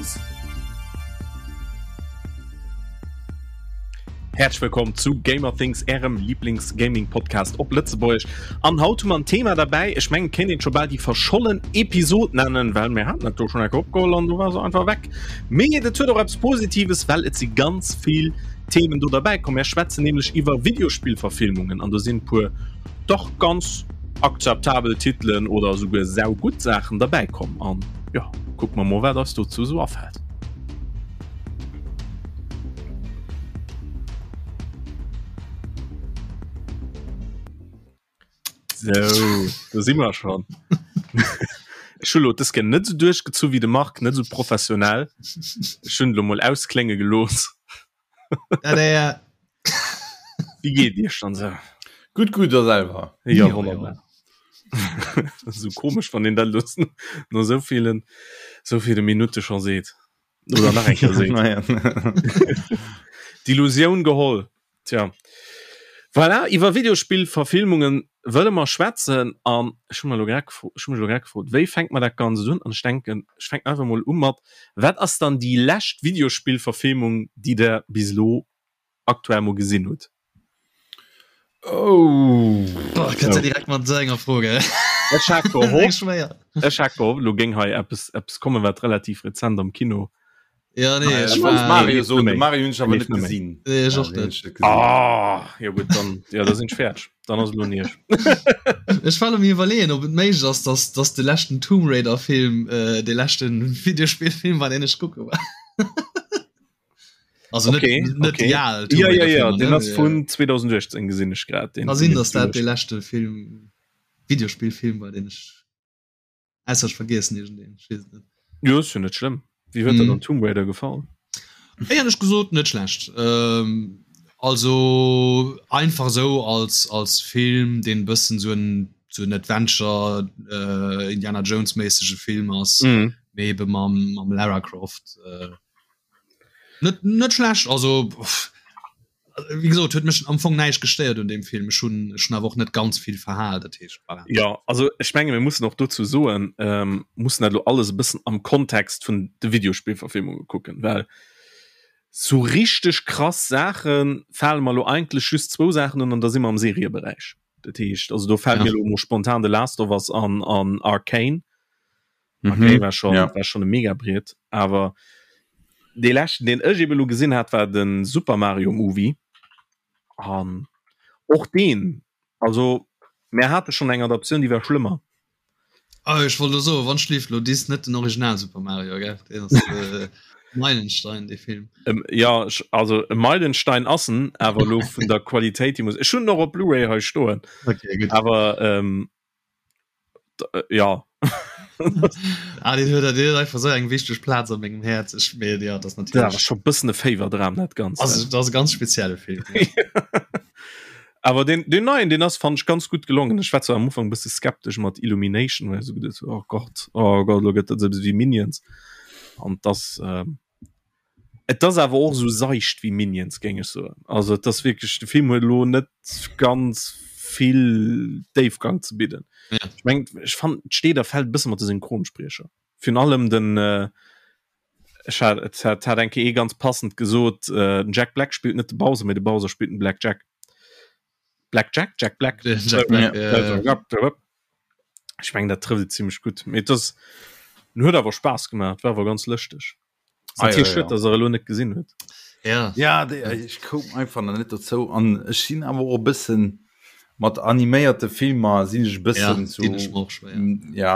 Things. Häerzlech wëllkomm zu Gamer Things, ärem Lieblings-Gaming-Podcast op Lëtzebuergesch. An haut hu mer en Thema derbäi, ech mengen, et kéint een et scho bal déi verschollen Episod nennen, well mir haten dat do schonn eng Kéier opgeholl an du war se einfach weg. Mee et huet och eppes Positives, well et si ganz vill Themen do derbäi komm. Mir schwätzen nämlech iwwer Videospillverfilmungen an do sinn e puer dach ganz akzeptabel Titelen oder esouguer saugutt Saachen derbäi komm. An jo, kucke mer mol, wat eis dozou esou afält. So, do si mer schon. Ech hu lo dës Kéier net esou duerchgezu wéi de Marc, net esou professionell. Ech hunn lo mol ausklénge gelooss. Tada! Wéi geet Iech dann esou? Gutt, gutt, a selwer? Jo, wonnerbar. Esou komesch, wann een dat lo no esou villen, esou ville Minutte scho seet. Oder nach eng Kéier seet. D'Illusioun geholl. Tja. Voilà, iwwer Videospillverfilmungen wëlle mer schwätzen an ech hu mer elo grad gefro, ech hu mech elo grad gefrot, wéi fänkt mer dat Ganzt un? An ech denken, ech fänken einfach mol u mat, wat ass dann déi lescht Videospillverfilmung, déi der bis elo aktuell mol gesinn hutt? Oh. Boah, kënnt der direkt mat esou enger Fro, gell? Ech hat gehofft, Schwéier. ech hat gehofft, elo géing hei eppes, eppes kommen, wat relativ rezent am Kino Ja, nee, Ah, ech ech war- wollt Mario soen, Net de méi. Mario hunn ech awer Leeft net net méi. gesinn. Nee, ech Ja, och den hunn net. ech net gesinn. Ah, jo gutt, dann, ja, da sinn ech fäerdeg. Dann ass et elo un Iech. Ech war am iwwerleeën, ob et méiglech ass, dass, dass de leschten Tomb Raider Film äh, de leschten Videospillfilm war, deen ech kucke war. Also net, Okay, net okay. déi al Tomb Ja, ja, Raider ja, Filmer, den ne? ass vun 2018 gesinn ech grad. Den Ka sinn, dass dat de de leschte Film, Videospillfilm war, deen ech Ausser ech vergiessen iergendeen, ech weess et net. Jo, ass jo net schlëmm. Wéi huet der Mhm. dann Tomb Raider gefall? Éierlech gesot net schlecht. Ähm, also einfach sou als, als Film, deen e bëssen sou en, sou en Adventure, äh, Indiana Jones méissege Film ass, Mhm. mee ebe mam, mam Lara Croft. Äh, net, net schlecht, also pff, Wéi gesot, huet mech am Fong näischt gestéiert un deem Film. Ech hunn ech hunn awer och net ganz vill verhal, dat heescht, voilà. Jo, also ech menge mir mussen och dozou soen, ähm, mussen dat elo alles e bëssen am Kontext vun de Videospillverfilmunge kucken, well sou richteg krass Saache fale mer elo eigentlech just zwou Saachen un an da si mer am Serieberäich. Dat heescht, also do fält Ja. mir elo emol spontan The Last of Us an an Arcane. Arcane war schon, ja. war schon e Megabriet, awer dee leschten, deen ech eben elo gesinn hat, war den Super Mario Movie. An och deen, also mär hate schon eng Adaptioun, déi war schlëmmer. Ah, ech wollt elo soen, wann schlieft lo dis net den Original Super Mario, gell? Deen ass äh, Meilenstein, dee Film. Ähm, ja, ech, also e Meilenstein ass en, awer elo vun der Qualitéit, déi muss, ech hunn en och op Blu-ray hei stoen, Okay, gutt. awer ähm, äh, ja ah, den huet den einfach so eng wichteg Platz an mengem Herz ich mir ja das natürlich ja, schon bëssen e Faverdram net ganz also, das ganz spezielle Film ja. aber den den neuen den ass fand ich ganz gut gelungen ich war zwar am Anfang bist skeptisch mat Illumination weil so gedacht, oh Gott oh Gott lo gëtt dat wie Minions und das ähm, Et ass awer och esou seicht wéi Minions, géing ech soen. Also et ass wierklech, de Film huet elo net ganz vill Déifgang ze bidden. Ja. Ech mengen, ech fannen, et steet a fält e bësse mat de Synchronspriecher. Virun allem den, ech hat, et hat, hat eng Kéier ee ganz passend gesot, den Jack Black spillt net de Bowser, mee de Bowser spillt den Black Jack. Black Jack? Jack Black? Jack Black, ja, ja. Ech mengen, dat trëfft et zimmlech gutt. Mee et ass, en huet awer Spaass gemaach, et war awer ganz lëschteg. Ah, ja, ja, ja. dass er elo net gesinn huet. Ja, ja de, ich koum einfach nach net dozou an ech sinn awer och e bëssen mat animéierte Filmer sinn ech e bëssen ja, so deen ech mer och schwéier. ja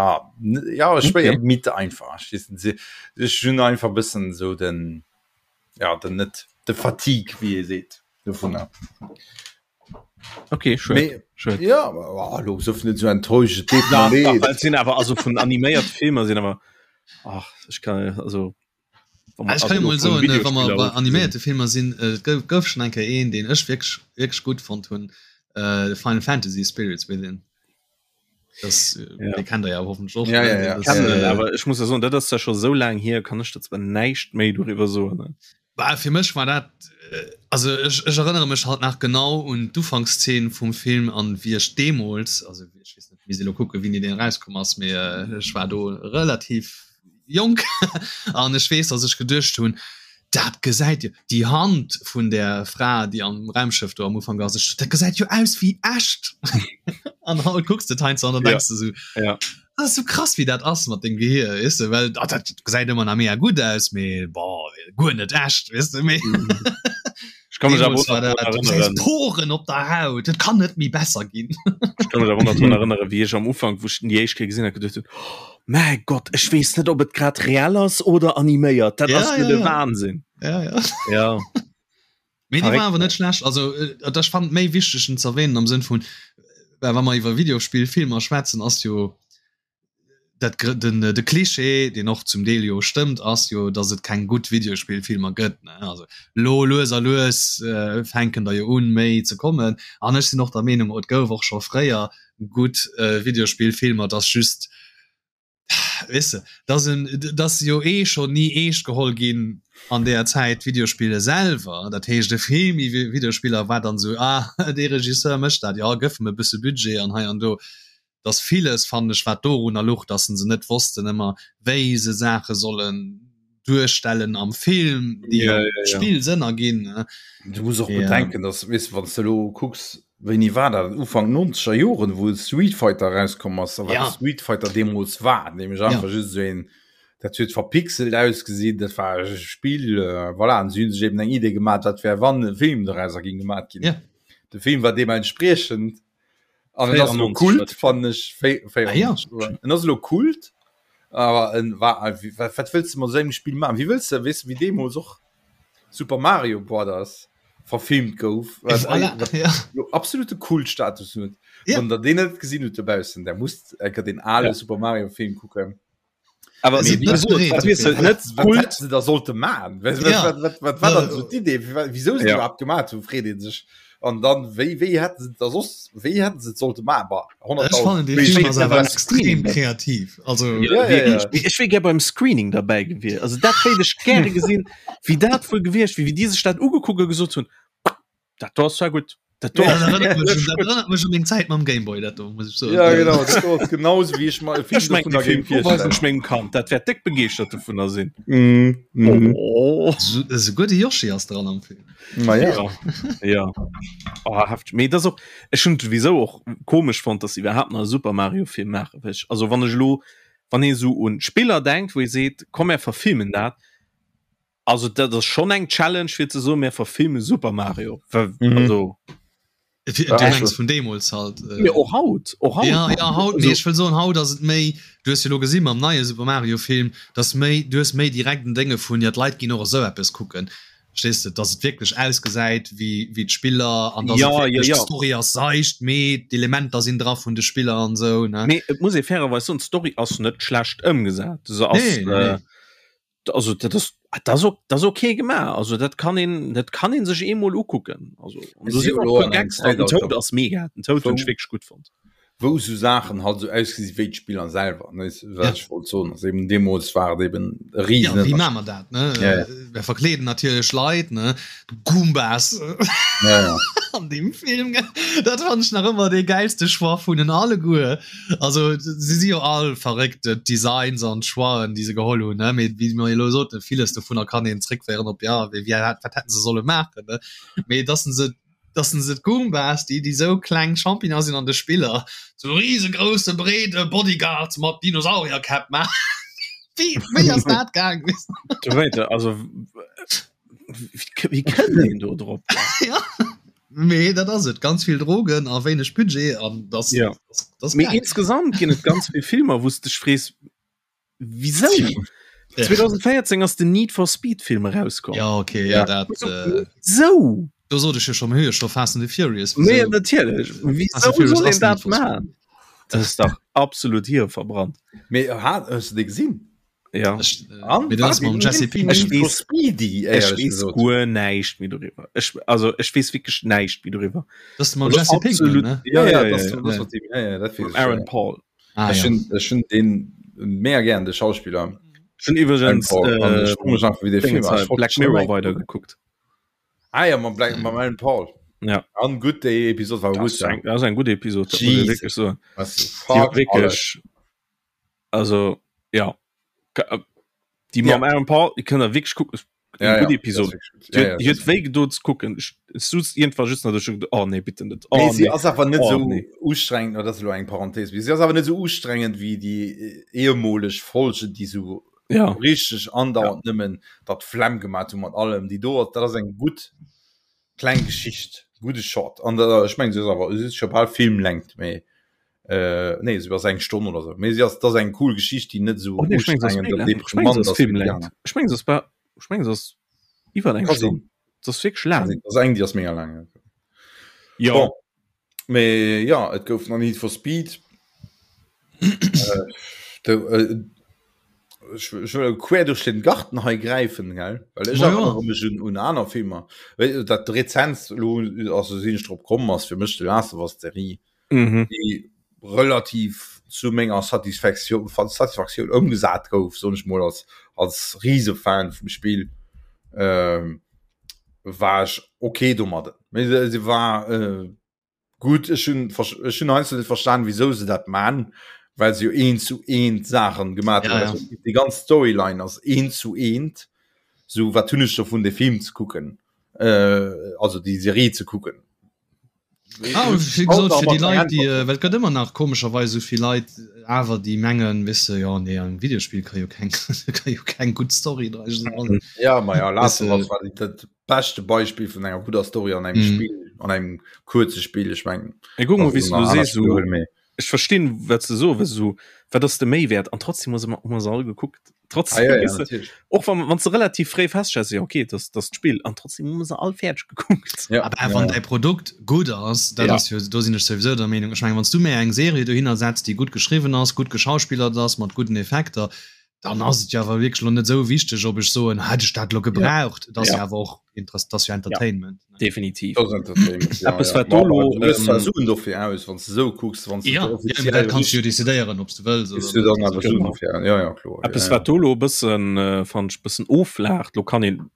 ja schwéier Okay. mit einfach ech weess net, ech hunn einfach e bëssen sou den ja den net de Fatigue wéi ee seet dovunner. Okay, schön. Mee, schön. ja oh, lo sof net so enttäuscht et deet Na, mer dach, leed. well et sinn awer also vun animéiert Filmer sinn awer ach ech kann also Ah, ech kann jo mol soen, wa mer bei animéierte Filmer sinn, et gouf, gouf schonn eng Kéier een, deen ech wierklech, wierklech gutt fonnt hunn, äh, Final Fantasy Spirits Within. Das, Ja. dee kennt der ja hoffentlech och. Ja, ne? ja, ja. Das, Kennen, äh, awer ech muss ja soen, dat ass ja scho sou laang hier, kann ech der zwar näischt méi doriwwer soen. Ne? Bah, fir mech war dat, äh, also ech, ech erënnere mech halt nach genau un d'Ufankszeen vum Film an wéi ech deemools, also ech weess net, misst elo kucken, wéini deen erauskomm ass, mee äh, ech war do relativ. jonk an ech weess, datt ech geduecht hunn, dat gesäit jo, déi Hand vun där Fra, déi am Raumschëff do am Ufank ass, ech, dat gesäit jo aus wéi echt. An haut kucks de et heiansdo an dann denks de sou, Ja. dat ass sou krass wéi dat ass mat dengem Gehier, weess de, well ah, dat gesäit ëmmer nach mega gutt aus, mee boah, guer net echt, weess de, mee Ech kann mech awer deemools och war nach dat, drun du gesäis erënneren. Poren op der Haut, et kann net méi besser ginn. Ech kann mech awer och nach drun erënneren, wéi ech am Ufank, wou ech den déi éischt Kéier gesinn hat, geduecht hunn, oh mäi Gott, ech weess net, ob et grad reell ass oder animéiert, dat Ja, ass jo ja, de ja. Wahnsinn. Ja, ja. Ja. Mee déi war Verréckt. awer net schlecht. Also äh, ech fand méi wichteg en z'erwähnen am Sënn vun, well wa mer iwwer Videospillfilmer schwätzen, ass jo dat den de Klischee, deen och zum Deel jo stëmmt, ass jo, datt et keng gutt Videospillfilmer gëtt. Ne? Also lo lues a lues äh, fänken der jo un méi ze kommen. An ech sinn och der Meenung, et gouf och scho fréier gutt äh, Videospillfilmer, dass just Weess de, dass en, dass se jo eh schonn ni eescht geholl ginn an deeër Zäit, d'Videospiller selwer. Dat heescht, e Film iwwer Videospiller war dann esou, ah, dee Regisseur mécht dat, jo, gëff em e bësse Budget an hei an do. Dass villes, fannen ech, wat dorunner luch, dass se net wossten ëmmer, wéi se Saache sollen duerstellen am Film, déi Ja, am ja, ja. Spill Sënn erginn, ne? Du muss och Ja. bedenken, dass, weess de, wann s de elo kucks, wéini war dat, Ufank nonzeger Joren, wou Street Fighter erauskomm ass a wat Ja. Street Fighter deemools war, nämlech Ja. einfach just esou een, dat huet verpixelt ausgesinn, dat war e Spill, voilà, an si hu sech eben eng Idee gemaach, wat wär, wann e Film dorauser géing gemaach ginn. Ja. De Film war deementspriechend an et ass elo 94 Kult, fannen ech, Ah ja. 94, en ass elo Kult, awer en war, wat, wat wëlls de mat esou engem Spill maachen? Wéi wëlls de, weess de, wéi deemools och Super Mario Brothers verfilmt gouf, wat Voilà, wat ja. lo absolute Kultstatus huet. Ja. Wann der deen net gesinn hutt dobaussen, der musst enker den ale Ja. Super Mario Film kucken. Awer Mee wéi wéi gesot, gesot, wat weess de, wat net Wat Kult. hätte se da sollte maachen? Wat, Ja. wat, wat, wat war dann so d'Idee? Wie- Wieso se Ja. überhaupt gemacht hunn, freet ee sech. An dann, wéi, wéi hätten se da soss, wéi hätten se et sollte maachen? Bah, Ech 100.000. fannen dee Wéi Film wéi ass awer beim extrem Screening. kreativ. Also Ja, Ja, ja, ja. wierklech. Mee Ech wier gär beim Screening derbäi gewiescht. Also dat wéilt ech gäre gesinn, wéi dat wuel gewiescht wier, wéi déi sech dat ugekuckt a gesot hunn, Dat do ass zwar gutt. Dat do dat ass erënnert mech un, wierklech dat gutt. erënnert mech un meng Zäit mam Gameboy, dat do, muss ech soen. Ja, genau, dat do ass genauso wéi ech mer e Film Ech mengen, dovunner dee Film géing do weisen virstellen. ech mengem Kand. Dat wäert déck begeeschtert dovunner sinn. Mm, mm. Oh. Esouguer de Yoshi ass dran am Film. Ma ja. Ja, ja. Oh, hefteg. Mee dat ass och, ech hunn et souwisou och komesch fonnt, dass se iwwerhaapt nach e Super Mario Film maachen, well ech, also wann ech elo, wann ee sou un Spiller denkt, wou ee seet, komm mär verfilmen dat, also dat ass schonn eng Challenge fir ze soen, mär verfilme Super Mario, well, Mhm. also. Du Ja, mengs vun deemools halt. Äh, Mee och haut, och haut. Ja, ja, haut, Also, mee ech wëll soen, haut ass et méi, du hues jo lo gesi mam neie Super Mario Film, dass méi, du hues méi direkt en Dénge vun, ja d'Leit ginn och esou eppes kucken, verstees de, dass et wierklech ausgesäit wéi, wéi d'Spiller an dass Ja, et ja, wierklech ja. d'Story ass seicht, mee d'Elementer sinn dra vun de Spiller an esou, ne? Mee et muss ee fairerweis soen, d'Story ass net schlecht ëmgesat. Se ass, Nee, nee, nee. äh, also dat ass dat ass ok dat ass okay gemaach. Also dat kann een dat kann een sech eemol ukucken. Also an do Si sinn och elo puer an engem Gags dran. Den Zäitalter, Toad ass mega. Den Toad hunn ech wou wierklech gutt fonnt. wou sou Saachen halt sou ausgesi wéi d'Spiller selwer, ne, wat Ja. ech wollt soen ass eben deemools war et eben e Ja, wéi Riesenënnerscheed. maache mer dat, ne? Ja, ja. Mir verkleeden natierlech Leit, ne? Goombas Ja, ja. an deem Film, gell? Dat fannen ech nach ëmmer dee gäilste Choix vun den alleguer. Also si si jo all verréckt, d'Designs an d'Choixen, déi se geholl hunn, ne? Mee wéi mer elo soten, villes dovunner kann een zréckféieren op, ja, wéi, wéi, wat hätten se solle maachen, ne? Mee dass se, dass se d'Goombas, déi, déi sou kleng Champignonen sinn an de Spiller, zu risegrousse, breede Bodyguards mat Dinosaurierkäpp maachen. Wéi, wéi ass dat gaang? Du wéi, also wéi kënnt een do drop? Ja. Mee dat ass et, ganz vill Drogen a wéineg Budget an das, Ja. das, das Mee geil. insgesamt ginn et ganz vill Filmer, wou s dech frees, wieso? Ja. 2014 ass den Need for Speed Film erauskomm. Ja, okay, ja, dat, äh, Wieso? do sot ech jo schon, mir hu jo scho Fast and the Furious. Nee, Wieso? natierlech. Fast and Wieso Furious soll ass een dat Need for Speed. maachen? Dat ass dach absolut hirverbrannt. Mee hat hues du dee gesinn? Ja. Ech, äh, An mee dat ass mam Jesse Pinkman. Ech weess- Speedy Ech éierlech weess gesot. guer näischt méi doriwwer. Ech, also ech weess wierklech näischt méi doriwwer. Das ist mam Also Jesse Pinkman, absolut- ne? Ja, ja, ja, das, ja. das Ja. mat dem, ja, ja, dat weess Mam ech, Aaron ja. Paul. Ah, Ech ja. hunn ech hunn den mega gären de Schauspiller Ech hunn iwwregens Aaron Paul. An äh, ech froe mech einfach wéi dee Film Dingens war. hei, Ech wollt Black schon Mirror eng- weidergekuckt. Ah ja, mam Black, mam Aaron Paul. Ja. An gutt déi Episod war Das gutt. ist ja. eng, das ist eng gutt Episod, dat muss ich Jesus. wierklech soen. Was Die war fuck alles. wierklech, also ja. Déi mam Aaron Paul, déi kënnt der wierklech kucken. Ja, Eng gutt ja, Episode. dat ass wierklech gutt. Ja, ja, Huet wéi gedoen ze kucken. Ech suz iergendwann just nach do, ech hu geduet, oh nee, bitte net. Oh Nee, si nee. ass awer net Oh sou nee. ustrengend, dat ass elo eng Parenthese, mee si ass awer net sou ustrengend wéi déi ehemoleg Folgen, déi sou Ja. richteg andauernd nëmmen der d'Flemm gemat hu mat allem. Déi do, dat ass eng gutt kleng Geschicht, gudde Short. An der, ech mengen, si ass awer, si ass scho bal Filmlängt, mee äh, nee, si ass eng Stonn oder sou. Mee si ass, dat ass eng cool Geschicht, déi net sou Oh nee, ech mengen, se ass ustrengend méi an laang. Ech mengen, deprimant se ass ass wéi déi Filmlängt. aner. Ech mengen, se ass ba, ech mengen, se ass iwwer eng Ka Stonn. sinn. Se ass wierklech Ka laang. sinn. Dat ass eng, déi ass mega laang, ja. Jo. Bon. Mee ja, et gouf nach Need for Speed. äh, de, äh, ech, ech wëll quer duerch den Garten hei gräifen, gell? Well ech Ma ja. erinnere mech un, un aner Filmer. Well, dat rezentst lo, also sinn ech drop komm, ass fir mech The Last of Us Serie, Mhm. déi relativ zu menger Satisfaktioun, Satisfaktioun ëmgesat gouf, soen ech mol als, als Risefan vum Spill. Ähm, war ech okay domadden. Mee se, se war äh, gut ech hunn ech hunn heiansdo net verstan, wieso se dat man, well se jo eent zu eent Saachen gemaat Ja, hunn. ja. Also, déi ganz Storyline ass eent zu eent. So wat hunn ech dovun de Film ze kucken, äh, also déi Serie ze kucken. Ah, wéi gesot, fir déi Leit, déi, äh, well et gëtt ëmmer nach komescherweis esou vill Leit awer, déi mengen, weess de, jo, nee, am Videospill ka jo keng, ka jo keng gutt Story dra sinn. Ja, ma ja, Last Weess of de, Us war déi- dat beschte Beispill vun enger gudder Story an engem Mhm. Spill, an engem kuerze Spill, ech mengen. Ey, guck mal, also wéi du nach aner sees, so, Spiele huele méi. ech verstinn wat se so so wat ass de Méiwäert an trotzdem muss immer immer all gekuckt trotzdem Ah, ja, ja, weißt du, natürlich. och wann wann ze relativ fréi feststellst ja okay das das Spiel an trotzdem muss all fertig gekuckt Ja, Aber ja, wann ja. däi Produkt gutt ass, dat Ja. ass jo, do sinn ech souwisou der Meenung, ech mengen, wann s du mir eng Serie dohinner setz, déi gutt geschriwwen ass, gutt geschauspillert ass, mat gudden Effekter, dann ass et jo awer wierklech elo net esou wichteg, ob ech soen, hätt ech dat elo gebraucht. Et ass jo Ja. awer och Interess, et ass jo Entertainment. ne? definitiv Das ist Entertainment, ja, Eppes, ja. wat Ma do lo, du hues zwar ähm, Suen dofir aus, wann du sou kucks, wann du Ja, ja, offiziell dat kanns du jo richtig decidéieren, ob s du wëlls kriss oder du net. dann awer Suen Genau. dofir. Ja, ja, kloer. Eppes Ja, ja. wat do lo e bëssen äh, fand ech bëssen oflaacht, lo kann een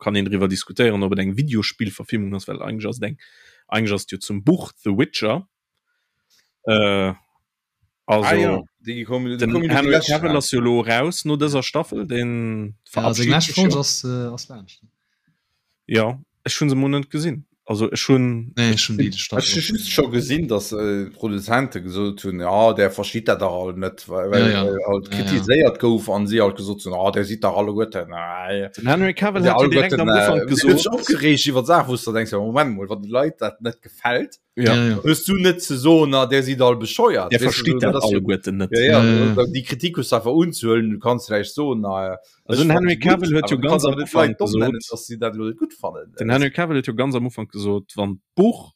kann een driwwer diskutéieren, ob et eng Videospillverfilmung ass, well eigentlech ass et eng eigentlech ass et jo zum Buch The Witcher. Äh, also Ah, ja. Déi kommen, déi den kommen jo déi Henry lescht Cavill raus. ass jo lo raus no dëser Staffel, den Ja, seng verabschiedet lescht sech Folg jo. ass, äh, ass laanscht. Ja, ech hunn se mol net gesinn. Also ech hunn Nee, ech hunn déi Ech Staffel hu och just scho gesinn, dass äh, d'Produzente gesot hunn, ja, der versteet dat dach all net, well, Ja, well ja. äh, halt Ja, ja. kritiséiert gouf an si halt gesot hunn, ah, der sidd dach alleguerten, äh, den Henry Cavill der hat jo direkt alleguerten, am äh, Ufank si huet sech gesot, opgereegt iwwer Saachen, wou s du denkst, ja, Moment mol, wann de Leit dat net gefält, ja, Ja, ja. hues du net ze soen, na, der sidd all bescheuert, der weess du, versteet so, dat dat ass jo, alleguerten net. ja, ja, Ja, ja. déi Kritik hues du einfach unzehuelen, du kanns vläicht soen, na, Also ech den fannen Henry se gutt, Cavill huet awer jo du ganz kanns am awer net Ufank d'Leit domm nennen, gesot, dass si dat elo net gutt fannen. den Henry Cavill huet jo ganz am Ufank gesot, wann d'Buch,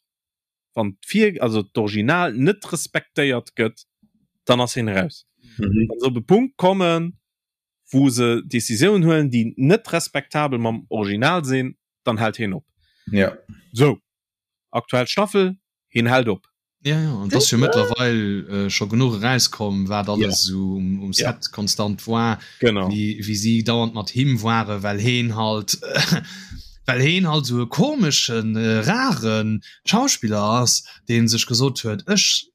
wann d'Vir, also d'Original net respektéiert gëtt, dann ass hien raus. Mhm. Wann se op e Punkt kommen, wou se Decisiounen huelen, déi net respektabel mam Original sinn, dann hält hien op. Ja. Sou, aktuell Staffel, hien hält op. Ja, ja, an et ass jo mëttlerweil äh, scho genuch erauskomm, wat alles esou um, um Ja. Set konstant war, Genau. wéi, wéi si dauernd mat him ware, well heen halt well heen halt esou e komeschen, äh, rare Schauspiller ass, dee sech gesot huet, ech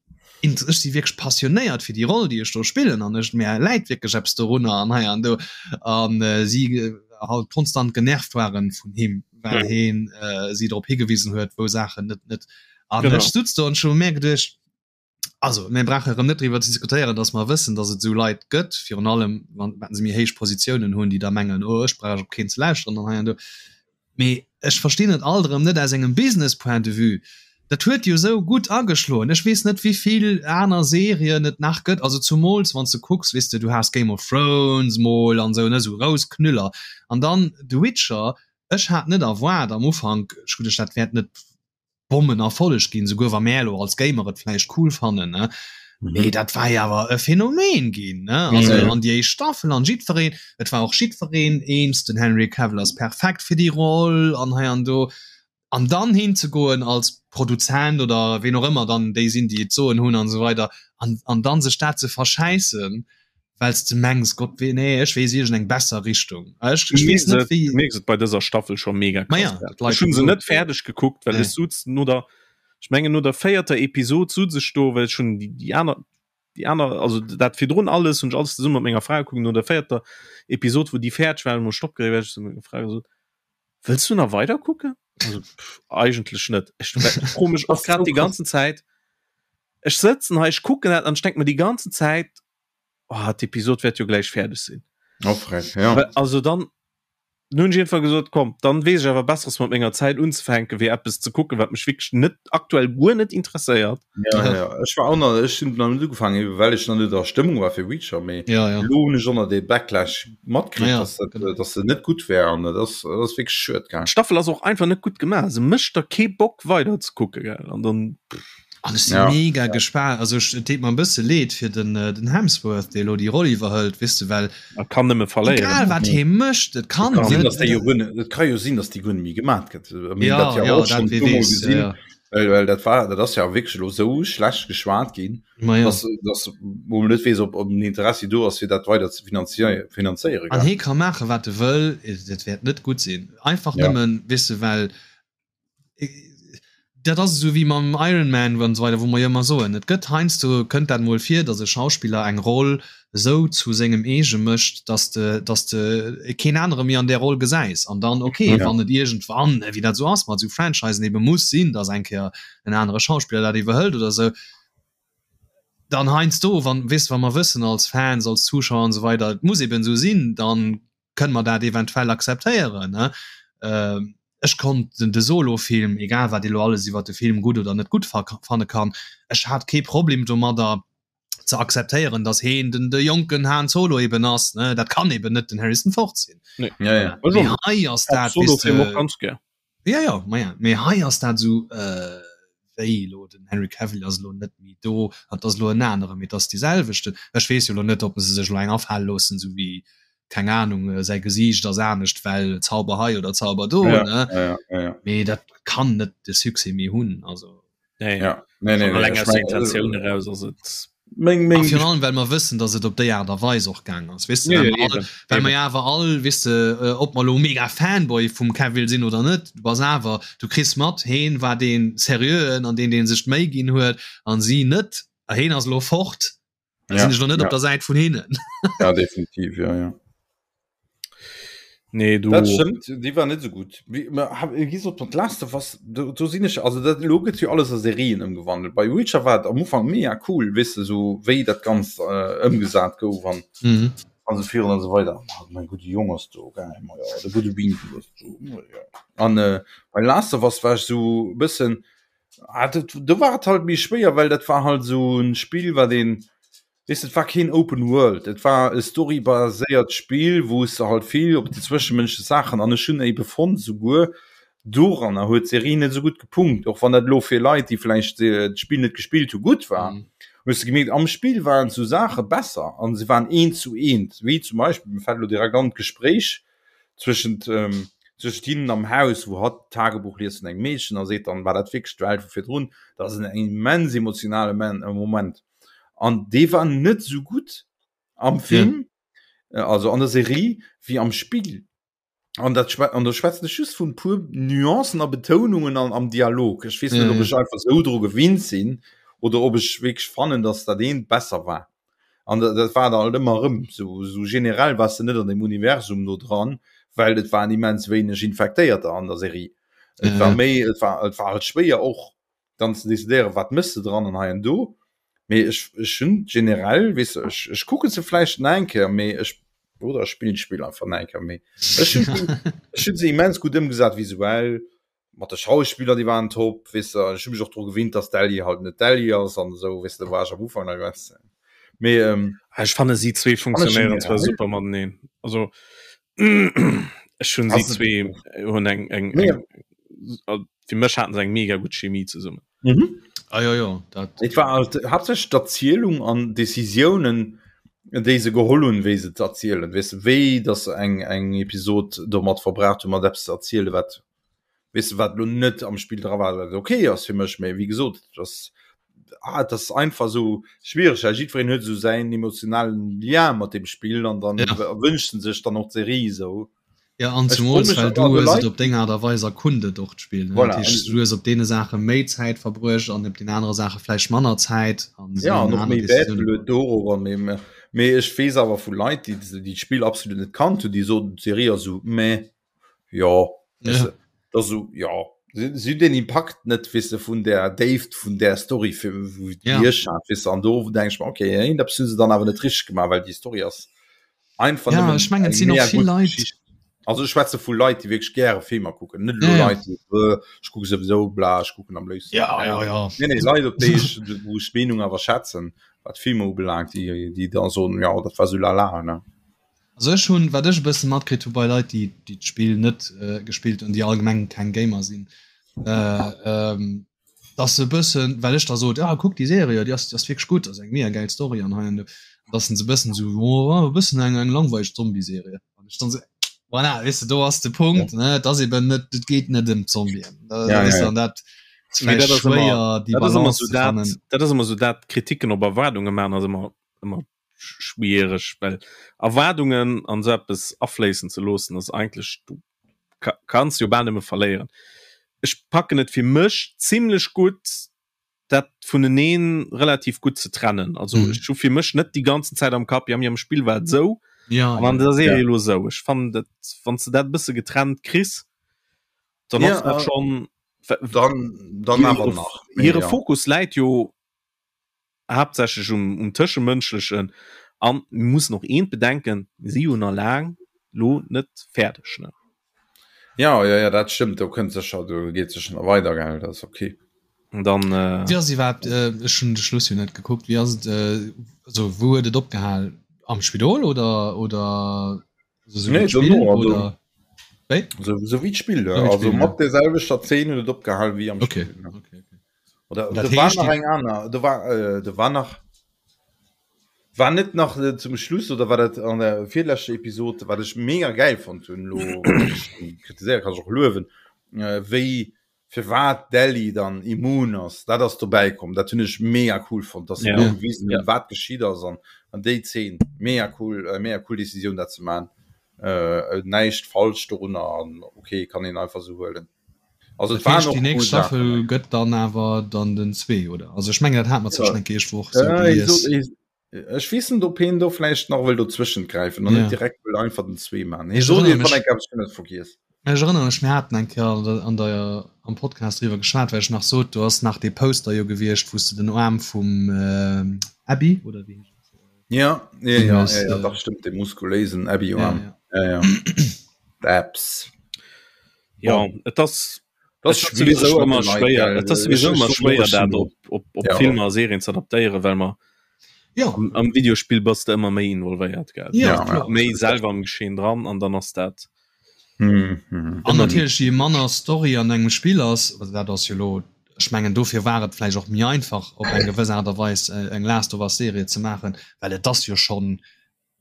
int ech si wierklech passionéiert fir déi Roll, déi ech do spillen an ech mär läit wierklech eppes dorunner an hei an do an äh, si äh, halt konstant genervt waren vun him, well Mhm. heen äh, si drop higewisen huet, wou Saachen net net An Genau. ech sutz do an ech hu mir geduecht, also mir brauche erëm net driwwer ze diskutéieren, datt mer wëssen, datt et esou Leit gëtt, virun allem wann wann se méi héich Positiounen hunn, déi da mengen, oh ech brauch op keen ze lauschteren an hei an do. Mee ech verstinn et alt erëm net aus engem Business Point de vue. Dat huet jo esou gutt ageschloen. Ech weess net wéivill aner Serien et nach gëtt, also zumools wann s de kucks, weess de, du has Game of Thrones mol an esou, ne, esou grouss Knüller an dann The Witcher. Ech hat net erwaart am Ufank, ech hu geduecht, dat wäert net Bommenerfolleg ginn, souguer wa mär elo als Gamer et vläicht cool fannen, ne? Mee dat war jo awer e Phänomen ginn, ne? Also Mhm. an déi éischt Staffel an jiddwereen, et war och jiddwereen eens, den Henry Cavill ass perfekt fir déi Roll an hei an do. An dann hinzegoen als Produzent oder ween och ëmmer dann déi sinn, déi et soen hunn an esou weider an, an dann sech dat ze verschäissen, well s de mengs, Gott wee, nee, ech weess iergend eng besser Richtung. Ech, ech weess net wéi. Mierks et bei dëser Staffel scho mega Ma krass. ja, dat d'Leit Ech hunn se gesot net fäerdeg gekuckt, well Nee. ech suz no der, ech mengen no der véierter Episod suz ech do, well ech hunn déi, déi aner. Déi aner, also dat virdrun alles hunn ech alles zesumme mat menger Fra gekuckt. No der véierter Episod, wou déi fäerdeg war, hunn ech Stopp gedréckt, well ech zu menger Fra gesot, Wëlls du nach weider kucken? Also pff, eigentlech net. Ech froe mech och grad déi ganzen Zäit, ech sëtzen hei, ech kucken dat an ech denke mer déi ganzen Zäit, oh, d'Episod wäert jo gläich fäerdeg sinn. Oh, frech, ja. Also dann nun ech einfach gesot komm dann weess ech awer besseres mat menger Zäit unzefänken wéi eppes ze kucken wat mech wierklech net aktuell guer net interesséiert. Ja, ja. Ech war och nach, ech hunn nach net ugefaangen, eben well ech nach net a Stëmmung war fir Reacher, mee ja, ja. lo hunn ech och nach dee Backlash matkritt, Ja, dass dat, genau. dass se net gutt wär an dat ass, dat ass wierklech schued, gell. D'Staffel ass och einfach net gutt gemaach, se mécht der kee Bock weider ze kucke gell an dann An ech si Ja. mega gespaant, also ech, et deet mer e bësse leed fir den, den Hemsworth, dee elo déi Roll iwwerhëlt, weess de, well Er kann nëmme verléieren. egal wat hee mécht, et kann Kann sinn, net, dass déi jo guer net, et ka jo sinn, dass déi guer net méi gemaat gëtt. Mir hunn ja, dat jo ja, och dat schonn wee puer Mol weess, ja, gesinn, ja. well, well dat war, dat ass ja wierklech elo esou schlecht geschwat ginn, Ma ja. dass, dass wou man net weess, ob, ob en Interessi do ass, fir dat weider ze finanzier, finanzéieren, An gell. hee ka maache wat e wëll, et wäert net gutt sinn. Einfach Ja. nëmmen, weess de, well Dat ass esou wéi mam Iron Man an esou weider, wou mer jo ëmmer soen, et gëtt heiansdo, kënnt dat emol vir, datt e Schauspiller eng Roll esou zu sengem eege mécht, datt de, datt de keen anere méi an där Roll gesäis. An dann, okay, wann et iergendwann, wéi dat esou ass mat esou Franchisen, ebe muss sinn, datt eng Kéier en anere Schauspiller dat iwwerhëlt oder esou, dann heiansdo, wann, weess de, wa mer wëssen als Fans, als Zuschauer an esou weider, et muss eben esou sinn, dann kënne mer dat eventuell akzeptéieren. Ech konnt den de Solo-Film, egal wat ee lo alles iwwer de Film gutt oder net gutt fanne kann, ech hat kee Problem domadder ze akzeptéieren, datt heen den de jonken Han Solo eben ass, ne, dat kann eben net den Harrison Ford sinn. Nee. Ja, ja. Mee hei ass dat, Solo Film och ganz gär. Ja, ja, ma ja, mee hei ass dat esou, äh, wéi elo den Henry Cavill ass elo net méi do an et ass elo en anere, mee et ass dee selwechten. Ech weess jo elo net, ob se sech elo eng afale loossen, esou wéi, keng Anung, säi Gesiicht ass anescht, well Zauber hei oder Zauber do, Ja, ne? ja, ja, ja, ja. Mee dat kann net de Succès méi hunn, also. Nee. Ja. Nee, nee, Schon nee, alleng ech aus der mengen, Intentioun eraus ass et. Meng, A meng virun allem, well mer wëssen, datt et op déi Aart a Weis och gaang ass, weess de, Ja, well ja, mer all, eben, well mer eben. jo awer all, weess de, ob mer elo mega Fanboy vum Cavill sinn oder net, du bass awer, du kriss mat, heen war dee Seriöen an deen, dee sech d'Méi ginn huet an si net, a heen ass elo fort, da Ja, sinn ech elo net ja. op der Säit vun hinnen. Ja, definitiv, ja, ja. Nee, du. Dat stëmmt, déi war net esou gutt. Wéi ma ha wéi gesot, mat Last of Us, do do sinn ech, also dat elo gëtt jo alles a Serien ëmgewandelt. Bei Witcher war et am Ufank mega cool, weess de, esou wéi dat Ganzt ëmgesat gouf an Mhm. an esou virun an esou weider. Ah, mäi gudde Jong ass do, geil, ma jo, de gudde Winkel ass do, ma jo. An bei Last of Us war ech esou e bëssen, ah, dat do war et halt méi schwéier, well dat war halt esou e Spill, wat een Weess de, et war keen Open World, et war e storybaséiert Spill, wou s de halt vill op déi zwëschemënschlech Saachen, an ech hunn ebe fonnt, souguer doranner huet d'Serie net esou gutt gepunkt, och wann dat elo fir Leit, déi vläicht d'Spill net gespillt hu gutt war, hues de gemierkt, am Spill waren esou Saache besser an se waren eent zu eent, wéi zum Beispill, mir fält elo direkt an, d'Gespréich zwëschent zwëschent hinnen am Haus, wou hatt d'Tagebuch liest vun engem Meedchen a seet dann, war dat wierklech d'Welt vu virdrun? Dat ass en immens emotionale Moment. An dee war net esou gutt am Film, ja. also an der Serie, wéi am Spill. An dat an do schwätzen ech just vun puer Nuancen a Betounungen an am Dialog. Ech weess net, ob ech einfach esou dru gewinnt sinn oder ob ech wierklech fannen, dass dat eent besser war. An dat, dat war dann halt ëmmer erëm sou, sou generell wars de net an dem Universum no dran, well et waren immens wéineg Infektéierter an der Serie. Et war méi, et war, et war halt schwéier och dann ze decidéieren, wat mëss de dran an hei an do. Mee ech, ech hunn generell, weess de, ech, ech kucke se vläicht nach eng Kéier, mee ech, oder ech spillen d'Spill einfach nach eng Kéier, mee ech hunn, ech hunn se immens gutt ëmgesat visuell, mat de Schauspiller, déi waren top, weess de, ech hu mech och dru gewinnt, dass d'Ellie halt net d'Ellie ass an esou, weess de, do war ech am Ufank nach ganz, mee ähm, Ech fanne si zwee funktionéieren zwar super mateneen. Also ech hunn si zwee hunn eng eng eng fir mech haten se eng mega gutt Chemie zesummen. Mhm. Ah, ja, ja, dat Et war halt haaptsächlech d'Erzielung an Decisiounen, déi se geholl hunn, wéi se z'erzielen, weess de, wéi datt se eng eng Episod domat verbraucht hunn, mat eppes ze erzielen, wat, weess de, wat elo net am Spill dra war, wat ok ass fir mech, mä wéi gesot, et ass, ah, et ass einfach esou schwiereg, well jiddwereen huet esou säin emotionalen Lien mat deem Spill an dann Ja. wënscht en sech dann och d'Serie esou. Ja an zumools well du hues et op deng Aart a Weis erkundet och d'Spill ne? Voilà. Dat heescht du hues op deene Saache méi Zäit verbruecht an op den anere Saache vläicht manner Zäit an Ja an och aner méi Wäert Decisiounen geluet dorobber mee mee mee ech weess awer vu Leit déi déi d'Spill absolut net kannt hunn déi soten d'Serie ass esou meh jo weess Ja. de dat ass esou jo si si hunn deen Impakt net weess de vun där Déift vun där Story fir wou Ja. déi ech hat weess de an do denk ech mer okay iergendeppes hu se dann awer net richteg gemaach well déi Story ass einfach Ja, nëmmen ech mengen, et eng sinn och mega vill gutt Leit. Geschicht. Also ech schwätze vu Leit, déi wierklech gäre Filmer kucken, net elo Ja, ja. Leit, déi äh, ech kucke souwisou bla, ech kucken am léifsten. Ja, ja, ja. Nee, nee, Leit, op déi ech, wou ech d'Meenung awer schätzen, wat Filmer ubelaangt, déi, déi da soen, ja, dat war sou lala, ne. Also ech hunn, wat ech e bësse matkritt hu bei Leit, déi, déi d'Spill net äh, gespillt hunn, déi allgemeng keng Gamer sinn, äh, ähm, dass se e bëssen, well ech da sot, ah kuck déi Serie, déi ass, déi ass wierklech gutt, ass eng mega gäil Story an hei an do, dass se e bëssen esou, oh e bëssen eng eng langweileg Zombie-Serie. An ech dann esou, voilà, weess de, do ass de Punkt, ne, et ass eben net, et geet net ëm d'Zombien, da Ja, weess ja, de, ja. an dat ass Mee vläicht dat ass ëmmer, schwéier, déi dat ass ëmmer Balance sou ze dat, fannen. dat ass ëmmer sou dat, Kritiken op Erwaardunge maachen ass ëmmer, ëmmer schwiereg, well Erwaardungen an esou eppes afléissen ze loossen ass eigentlech, du kanns jo bal nëmme verléieren. Ech packen et fir mech zimlech gutt, dat vuneneen relativ gutt ze trennen. Also mm. ech hu fir mech net déi ganzen Zäit am Kapp, ja mir am Spill war et sou ja, an an ja. der Serie lo sou. Ech fannen dat wann du dat bësse getrennt kriss, dann ja, ass dat äh, schon dann, dann awer nach. Hire ja. Fokus läit jo haaptsächlech um, um Tëschemënschlechen an mir mussen och eent bedenken, mir si jo nach laang lo net fäerdeg, ne? Ja, ja, ja, dat stëmmt, do kënnt sécher, do geet sécher nach weider, gell, dat ass okay. An dann, äh. Wéi ass iwwerhaapt, ech hunn de Schluss jo net gekuckt, wéi ass et, also wou huet et opgehal? Am Spidol oder, oder also sou wéi Nee, d'Spill dono, also oder wéi? sou, sou wéi d'Spill, Sou wéi also d'Spill, ja. mat där selwechter Zeen huet et opgehal wéi am Okay, Spill, ne? okay, okay. Oder Dat do war heescht, nach déi eng aner, do war, äh, do war nach, war net nach äh, zum Schluss oder war dat an der virleschter Episod, wat ech mega geil fonnt hunn, lo kritiséiere kann ech och luewen, äh, wéi firwat d'Ellie dann immun ass, dat ass dobäi komm, dat hunn ech mega cool fonnt, dass se Ja. do gewisen hunn, Ja. wat geschitt ass an an déi Zeen, mega cool, äh, mega cool Decisioun dat ze man, äh, näischt falsch dorunner an okay, kann een einfach sou huelen. Also Dat et waren heescht, och déi nächst cool Saachen Staffel dobäi. gëtt dann awer dann den 2, oder? Also ech mengen, dat hat mer zwar Ja. schon eng Kéier Woch sou Äh, hie sot, gelies. hie, ech weess net, ob hien do vläicht nach wëll dozwëschent gräifen an Ja. net direkt wëll einfach den 2 man. Hie Ech sot erënnere iergendwann mech, eng Kéier, awer ech hunn et vergiess. ech erënnere mech, mir haten eng Kéier an der, an der, am Podcast driwwer geschwat, well ech nach sot, do ass nach dee Poster jo gewiescht, wou s de den Aarm vum Abby, oder wéi heescht dat? Ja, ja, Gesinn ja, hues. ja, ja, dach stimmt, dee muskuléisen Ja, Abby-Aarm. ja. Ja, ja. D'Abs. Ja, Bon. et ass Das et ass schwierig sowieso mat ëmmer de Leit, schwéier gell. et ass Ech, sowieso ech ëmmer soen och, schwéier ech dat sinn op op op ja. Filmer a Serien ze adaptéieren, well mer Ja. am, am Videospill bass de ëmmer méi involvéiert, gell? Ja, Ja, ja. kloer. Méi selwer am Geschehen dran an dann ass dat Mhm, mhm. An ëmmer natierlech, je manner Story an engem Spill ass, also dat ass jo elo, ech mengen dofir war et vläicht och méi einfach op eng gewëss Aart a Weis eng Last of Us Serie ze maachen, well et ass jo schonn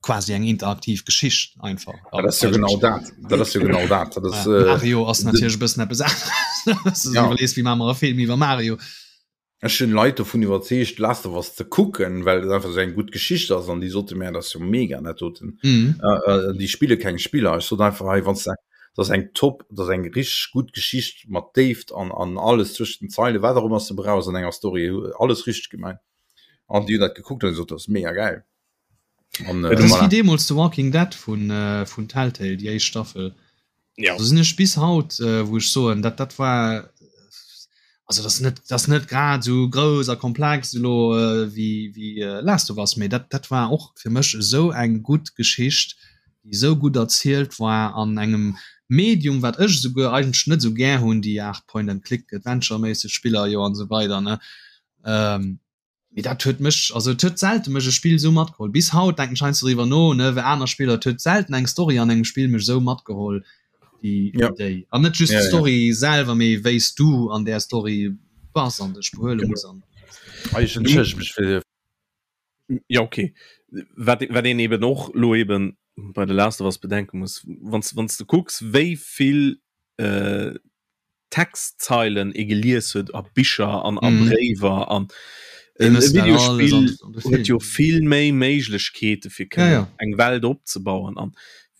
quasi eng interaktiv Geschicht einfach. Ja, dat ass jo genau dat. Dat ass jo genau dat. Dat ass, Ja, äh, Mario ass natierlech e bëssen eppes aneres. Ja. Iwwerlees, wéi maache mer e Film iwwer Mario? Ech hunn Leit dovun iwwerzeegt, Last of Us ze kucken, well et einfach esou eng gutt Geschicht ass an déi sote mir, dat ass jo mega dat doten. Mhm. Äh, äh, déi spille keng Spiller. Ech sot einfach hei, wann s de, dat ass eng top, dat ass eng richteg gutt Geschicht mat Déift an, an alles zwëschent den Zeile, wat och ëmmer s de brauchs an enger Story, alles richteg gemaach. An déi hunn dat gekuckt an gesot, dat ass mega gäil. An, Dat ass voilà. wéi deemools The Walking Dead vun, vun Telltale, déi éischt Staffel. Ja. Do sinn ech bis haut, wou ech soen, dat, dat war, also dat ass net, dat ass net grad esou grouss a komplex elo wéi, wéi Last of Us, mee dat, dat war och fir mech esou eng gutt Geschicht, déi esou gutt erzielt war an engem Medium, wat ech esouguer eigentlech net esou gär hunn, déi Aart Point-and-Click-Adventure-méisseg Spiller jo an esou weider, ne. Mee dat huet mech, also et huet selte mech e Spill esou matgeholl. Bis haut denken ech heiansdo driwwer no, ne, wéi aner Spiller, et huet selten eng Story an engem Spill mech esou matgeholl wéi Ja. déi. An net just Ja, ja. d'Story selwer, mee wéi s du an där Story bass an dech behuele muss an. Ah, ech entschëllege mech fir. Ja, okay. Wat, wat een eben och lo eben bei The Last of Us bedenke muss, wann s, wann s de kucks, wéi vill äh, Textzeilen ee gelies huet a Bicher an a Mhm. Bréiwer an Déi e mëssen dat alles Videospill an, an de huet Film. jo vill méi Méiglechkeete fir Ja, kënnen ja. eng Welt opzebauen an.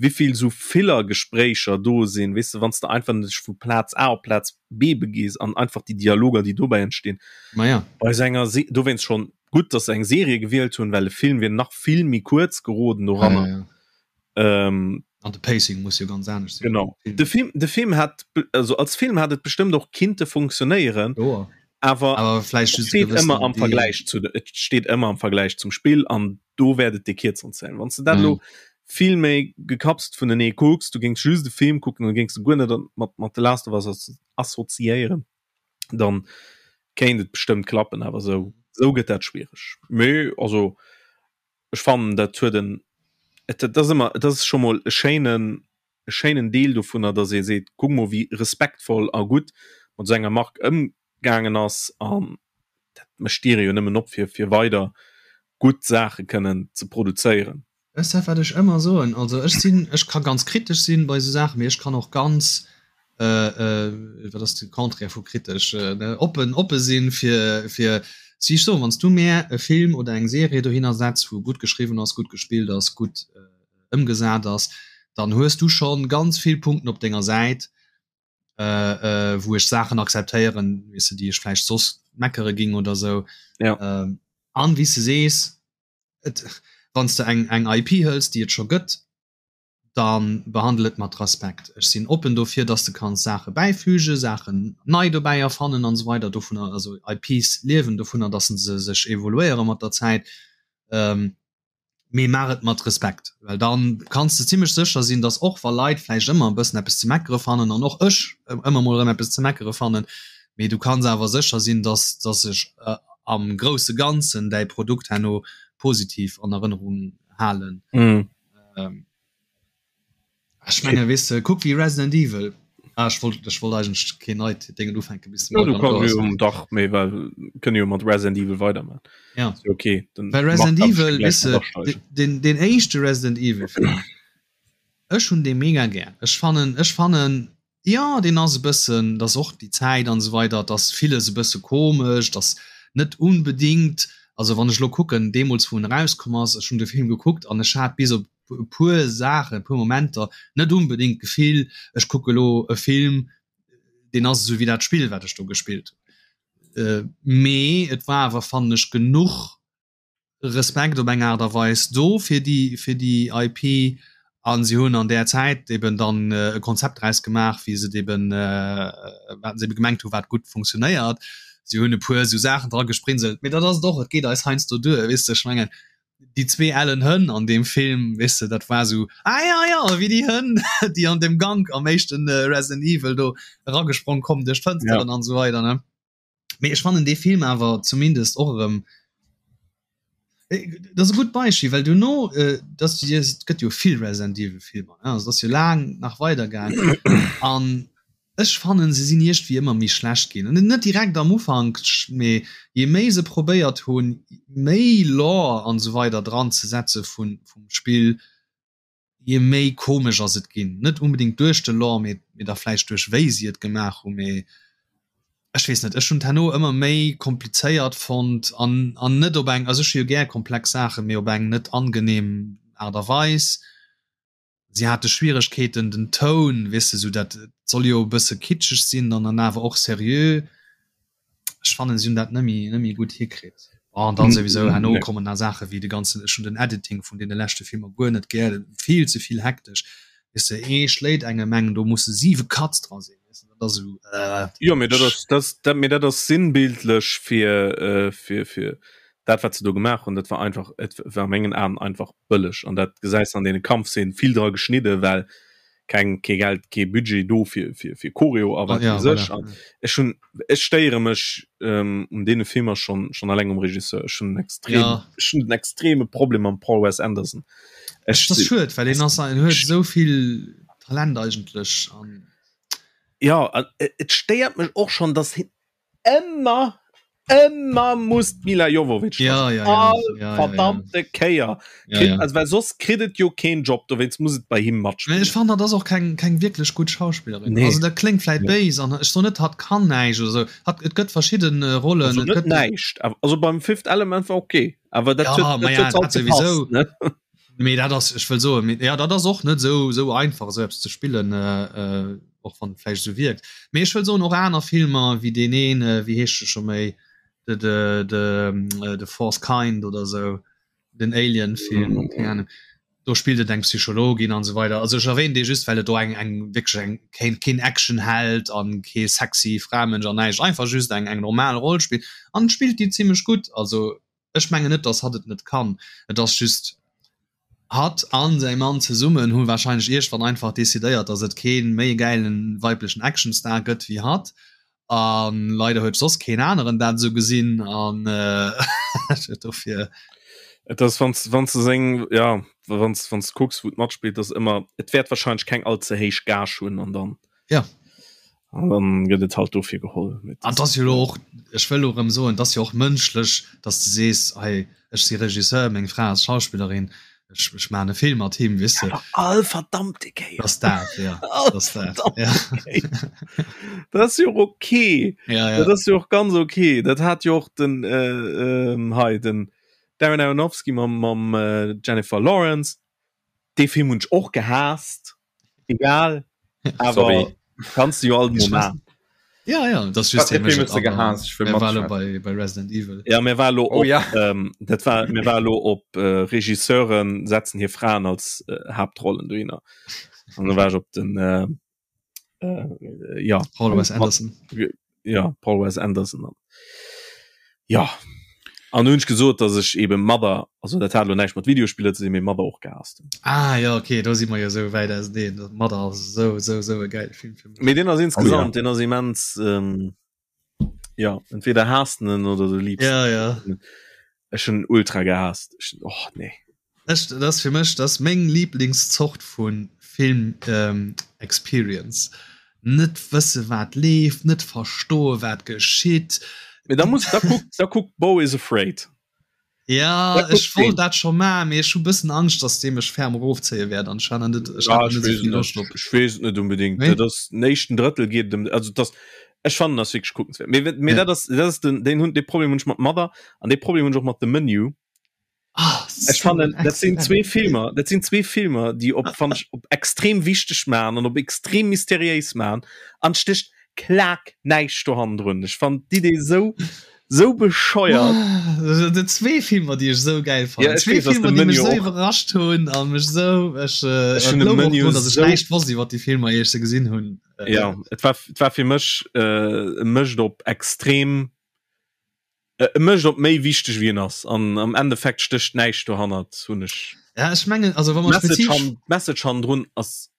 Wéivill sou Filler-Gespréicher do sinn, weess de, wann s de einfach dech vu Plaz A op Plaz B begees an einfach déi Dialoger, déi dobäi entstinn. Ma ja. Bei sou enger Se dowéinst schonn gutt, dass se eng Serie gewielt hunn, well e Film wier nach vill méi kuerz geroden doranner. Ja, ja. Ähm, an de Pacing muss jo ganz anescht sinn. Genau. De Film, de Film hat, also als Film hat et bestëmmt och kinnte funktionéieren. Jo. Awer, awer vläicht just steet ëmmer am Vergläich zu, et steet ëmmer am Vergläich zum Spill an do wäert et déi kierzeren zählen. Wann s de dat elo vill méi gekapselt vunenee kucks, du géings just de Film kucken an géings de guer net mat mat The Last of Us assoziéieren, dann kéint et bestëmmt klappen, awer sou sou gëtt dat schwiereg. Mee also ech fannen dat huet en et dat ass ëmmer et ass scho mol e schéinen e schéinen Deel dovunner, datt ee seet, kuck mol wéi respektvoll a gutt mat esou enger Mark ëmgaangen ass an dat mécht d'Diere jo nëmmen op fir fir weider gutt Saache kënnen ze produzéieren. Weess de wat ech ëmmer soen, also ech sinn, ech ka ganz kritesch sinn bei esou Saachen, mee ech kann och ganz, wat ass de Contraire vu kritesch, oppen, oppe sinn fir, fir, wéi ech soen, wann s du mär e Film oder eng Serie dohinner setz wou gutt geschriwwen ass, gutt gespillt ass, gutt ëmgesat ass, dann hues du schonn ganz vill Punkten op denger Säit, wou ech Saachen akzeptéieren, weess de, déi ech vläicht soss meckere ging oder sou. Ja. An wéi s de sees, et, wann s de eng, eng IP hëls, déi et scho gëtt, da behandel et mat Respekt. Ech sinn oppen dofir, dass de kanns Saache bäifügen, Saachen nei dobäi erfannen an esou weider. Dovunner, also IPs liewen dovunner, dass se sech evoluéiere mat der Zäit. Mee maach et mat Respekt, well dann kanns de zimmlech sécher sinn, dass och wa Leit vläicht ëmmer e bëssen eppes ze meckere fannen, an och ech ëmmer mol erëm eppes ze meckere fannen, mee du kanns awer sécher sinn, dass dass ech am grousse Ganzen däi Produkt herno positiv an Erënnerung halen. Ech menge weess de, kuck wéi Resident Evil. Ah, ech wollt, ech wollt eigentlech keen neit Déngen ufänken bis de Morgan do ass. Dach, méi well kënne jo mat Resident Evil weiderman. Ja. Okay, dann Well Resident Evil, weess de, den, den éischte Resident Evil Film, ech hunn dee mega gär. Ech fannen, ech fannen, Jo, deen ass e bëssen, et ass och déi Zäit an esou weider, et ass villes e bësse komesch, et ass net unbedingt, also wann ech elo kucken, deemools wou en erauskomm ass, ech hunn de Film gekuckt an ech hat bis op e puer Saachen, e puer Momenter net unbedingt d'Gefill, ech kucke elo e Film, deen ass esou wéi dat Spill wat ech do gespillt hunn. Mee et war awer, fannen ech, genuch Respekt op eng Aart a Weis do fir déi fir déi IP an si hunn an där Zäit eben dann e Konzept draus gemaach, wéi se et eben wat se ebe gemengt hu wat gutt funktionéiert. Si hunn e puer esou Saachen dra gesprinselt, mee dat ass et och, et geet eis heiansdo duer, weess de. Ech mengen déi zwee ellen Hënn an deem Film, weess de, dat war esou, ah ja, ja, wéi déi Hënn, déi an deem Gank am éischte Resident Evil do eragesprong kommen duerch d'Fënsteren an esou weider, ne. Mee ech fannen dee Film awer zumindest och erëm dat ass e gutt Beispill, well duerno dat et gëtt jo vill Resident Evil Filmer, ne, also et ass jo laang nach weider gaang an ech fannen se sinn iergendwéi ëmmer méi schlecht ginn an net direkt am Ufank, mee je méi se probéiert hunn méi Lore an esou weider dran ze setze vun vum Spill, je méi komesch ass et ginn. Net unbedingt duerch de Lore, mee mee da vläicht duerch wéi si et gemaach hunn, mee ech weess net, ech hunn et herno ëmmer méi komplizéiert fonnt an an net op eng, also ech hu jo gär komplex Saachen, mee op eng net angenehm Aart a Weis. Si hate Schwieregkeeten den Toun, weess de, sou dat et soll jo e bësse kitscheg sinn an dann awer och seriö. Ech fannen si hunn dat net méi net méi gutt hikritt. An dann souwisou herno kommen nach Saache wéi de ganzen, ech hunn den Editing vun deene leschte Filmer guer net gär, vill ze vill hektesch, weess de, ee schléit engem eng, do musse siwe Cuts dra sinn, weess de, dat ass esou äh. Jo, mee dat ass, dat, dat, mee dat ass sinnbildlech fir, fir, fir dat wat se do gemaach hunn. Dat war einfach, et war a mengen Aen einfach bëlleg an dat gesäis de an deene Kampfszenen, vill dra geschnidde well keng kee Geld kee Budget do fir fir fir Choreo a wat ja, weess ech. Voilà. Ech hunn ech stéiere mech ähm, un deene Filmer schon schon alleng um Regisseur. Ech hunn extrem ja. ech hunn den extreme Problem mam Paul Wes Anderson. Ech, das schued, well en ass en huet esou vill Talent eigentlech an Ja, et stéiert mech och schon, dass hin ëmmer ëmmer muss d'Milla Jovovich ja, ja, ja, all ja, verdammte ja, ja. Kéier ja, ja. Also, well soss kritt et jo keen Job dowéinst muss et bei him matspillen. Ech fand dat ass och keng keng wierklech gutt Schauspillerin nee. also dat kléngt vläit ja. béis an ech soen net hatt kann näischt oder sou hat et gëtt verschidden äh, Rollen also, net näischt also beim Fifth Element war okay awer dat ja, huet, dat ja, huet halt gepasst, ne? Mee dat ass, ech wëll soen, mee ja dat ass och net esou esou einfach esou eppes ze spillen, och wann et vläicht esou wierkt. Mee ech wëll soen och aner Filmer wéi deen een, wéi heescht e scho méi, de de de The Fourth Kind oder esou, den Alien-Film, keng Ahnung, do spillt et eng Psychologin an esou weider. Also ech erwähnen dee just, well et do eng eng wierklech eng keen keen Actionheld an kee sexy Framensch an näischt, einfach just eng eng normal Roll spillt an spillt déi zimlech gutt. Also Ech mengen net, dass hatt et net kann. Et ass just, hatt an säi Mann zesummen hu wahrscheinlech iergwann einfach decidéiert, dass et kee méi gäilen weiblechen Actionstar gëtt wéi hatt. A leider huet soss keen aneren dat esou gesinn an dofir. Et ass, wann s, wann s de seng, ja, wann s, wann s de kucks, wou et matspillt, ass ëmmer, et wäert wahrscheinlech keng all ze héich Gage hunn an dann. Ja. An dann gëtt et halt dofir geholl. An et ass jo elo och, ech wëll elo erëm soen, et ass jo och mënschlech, datt s de sees, hei, ech si Regisseur, meng Fra ass Schauspillerin, ech, ech maachen e Film mat him, weess de. Awer all verdammte Kéier. Ass dat, ja. All ass dat, ja. Dat ass jo och ok. Ja, ja. Dat ass jo och ganz ok. Dat hat jo och den, äh, hei, den Darren Aronofsky mam, mam Jennifer Lawrence. Dee Film hunn ech och gehaasst. Egal. Awer kannst du jo alt mol man. Ja ja das just bei, bei Resident Evil. Ja mir war lo oh, op, ja. ähm, dat war mir war lo op äh, Regisseuren setzen hier Fraen als äh, Hauptrollen du hinner. An da war ich op den äh, äh, ja Paul Wes Anderson ja Paul Wes Anderson an ja an hunn ech gesot dass ech eben Mother also dat hat lo näischt mat Videospiller ze dinn mee Mother och gehasst hunn. Ah ja okay do si mer jo sou wäit auseneen Mother ass sou sou sou e geile Film fir mech. Mee deen ass insgesamt oh, ja. deen ass immens ähm, ja entweder haasst en oder du liebst ja ja ech hunn ultra gehasst ech, oh nee Ech, dat ass fir mech dat ass meng Lieblingszort vu Film ähm, Experience. Net wësse wat leeft, net verstoe wat geschitt. Mee da muss da kuck da kuck Beau is Afraid. Ja ech wollt dat scho maachen, mee ech hu bëssen Angscht, datt dee mech ferm erofzéie wäert an ech hat net ech hat net esou vill Loscht op. Ech weess et net unbedingt. Nee? Dat ass den éischten Drëttel geet ëm also dat ech fannen ass wierklech kuckenswäert. Mee mee ja. dat ass dat ass den deen hunn dee Problem hunn ech mat Mother an dee Problem hunn ech och mat The Menu. Ah, Ech fannen dat sinn zwee Filmer dat sinn zwee Filmer déi op fan ech op extrem wichteg man an op extrem mysteriéis man an sticht klak näischt do hannendrun. Ech fannen d'Idee sou sou bescheuert. Ah, zwee Filmer déi ech sou geil fannen. Ja, zwee Filmer déi mech sou iwwerrascht hunn a mech sou ech äh, ech hunn de Menu dass ech näischt wosst iwwer déi Filmer ier ech se gesinn hunn. Ja et war et war fir mech äh, e mécht op extrem E mécht op méi wichteg wéi en ass an am Endeffekt stécht näischt dohannert, hunn ech. Ja ech mengen also wa mer Message han, d'Message hannendrun ass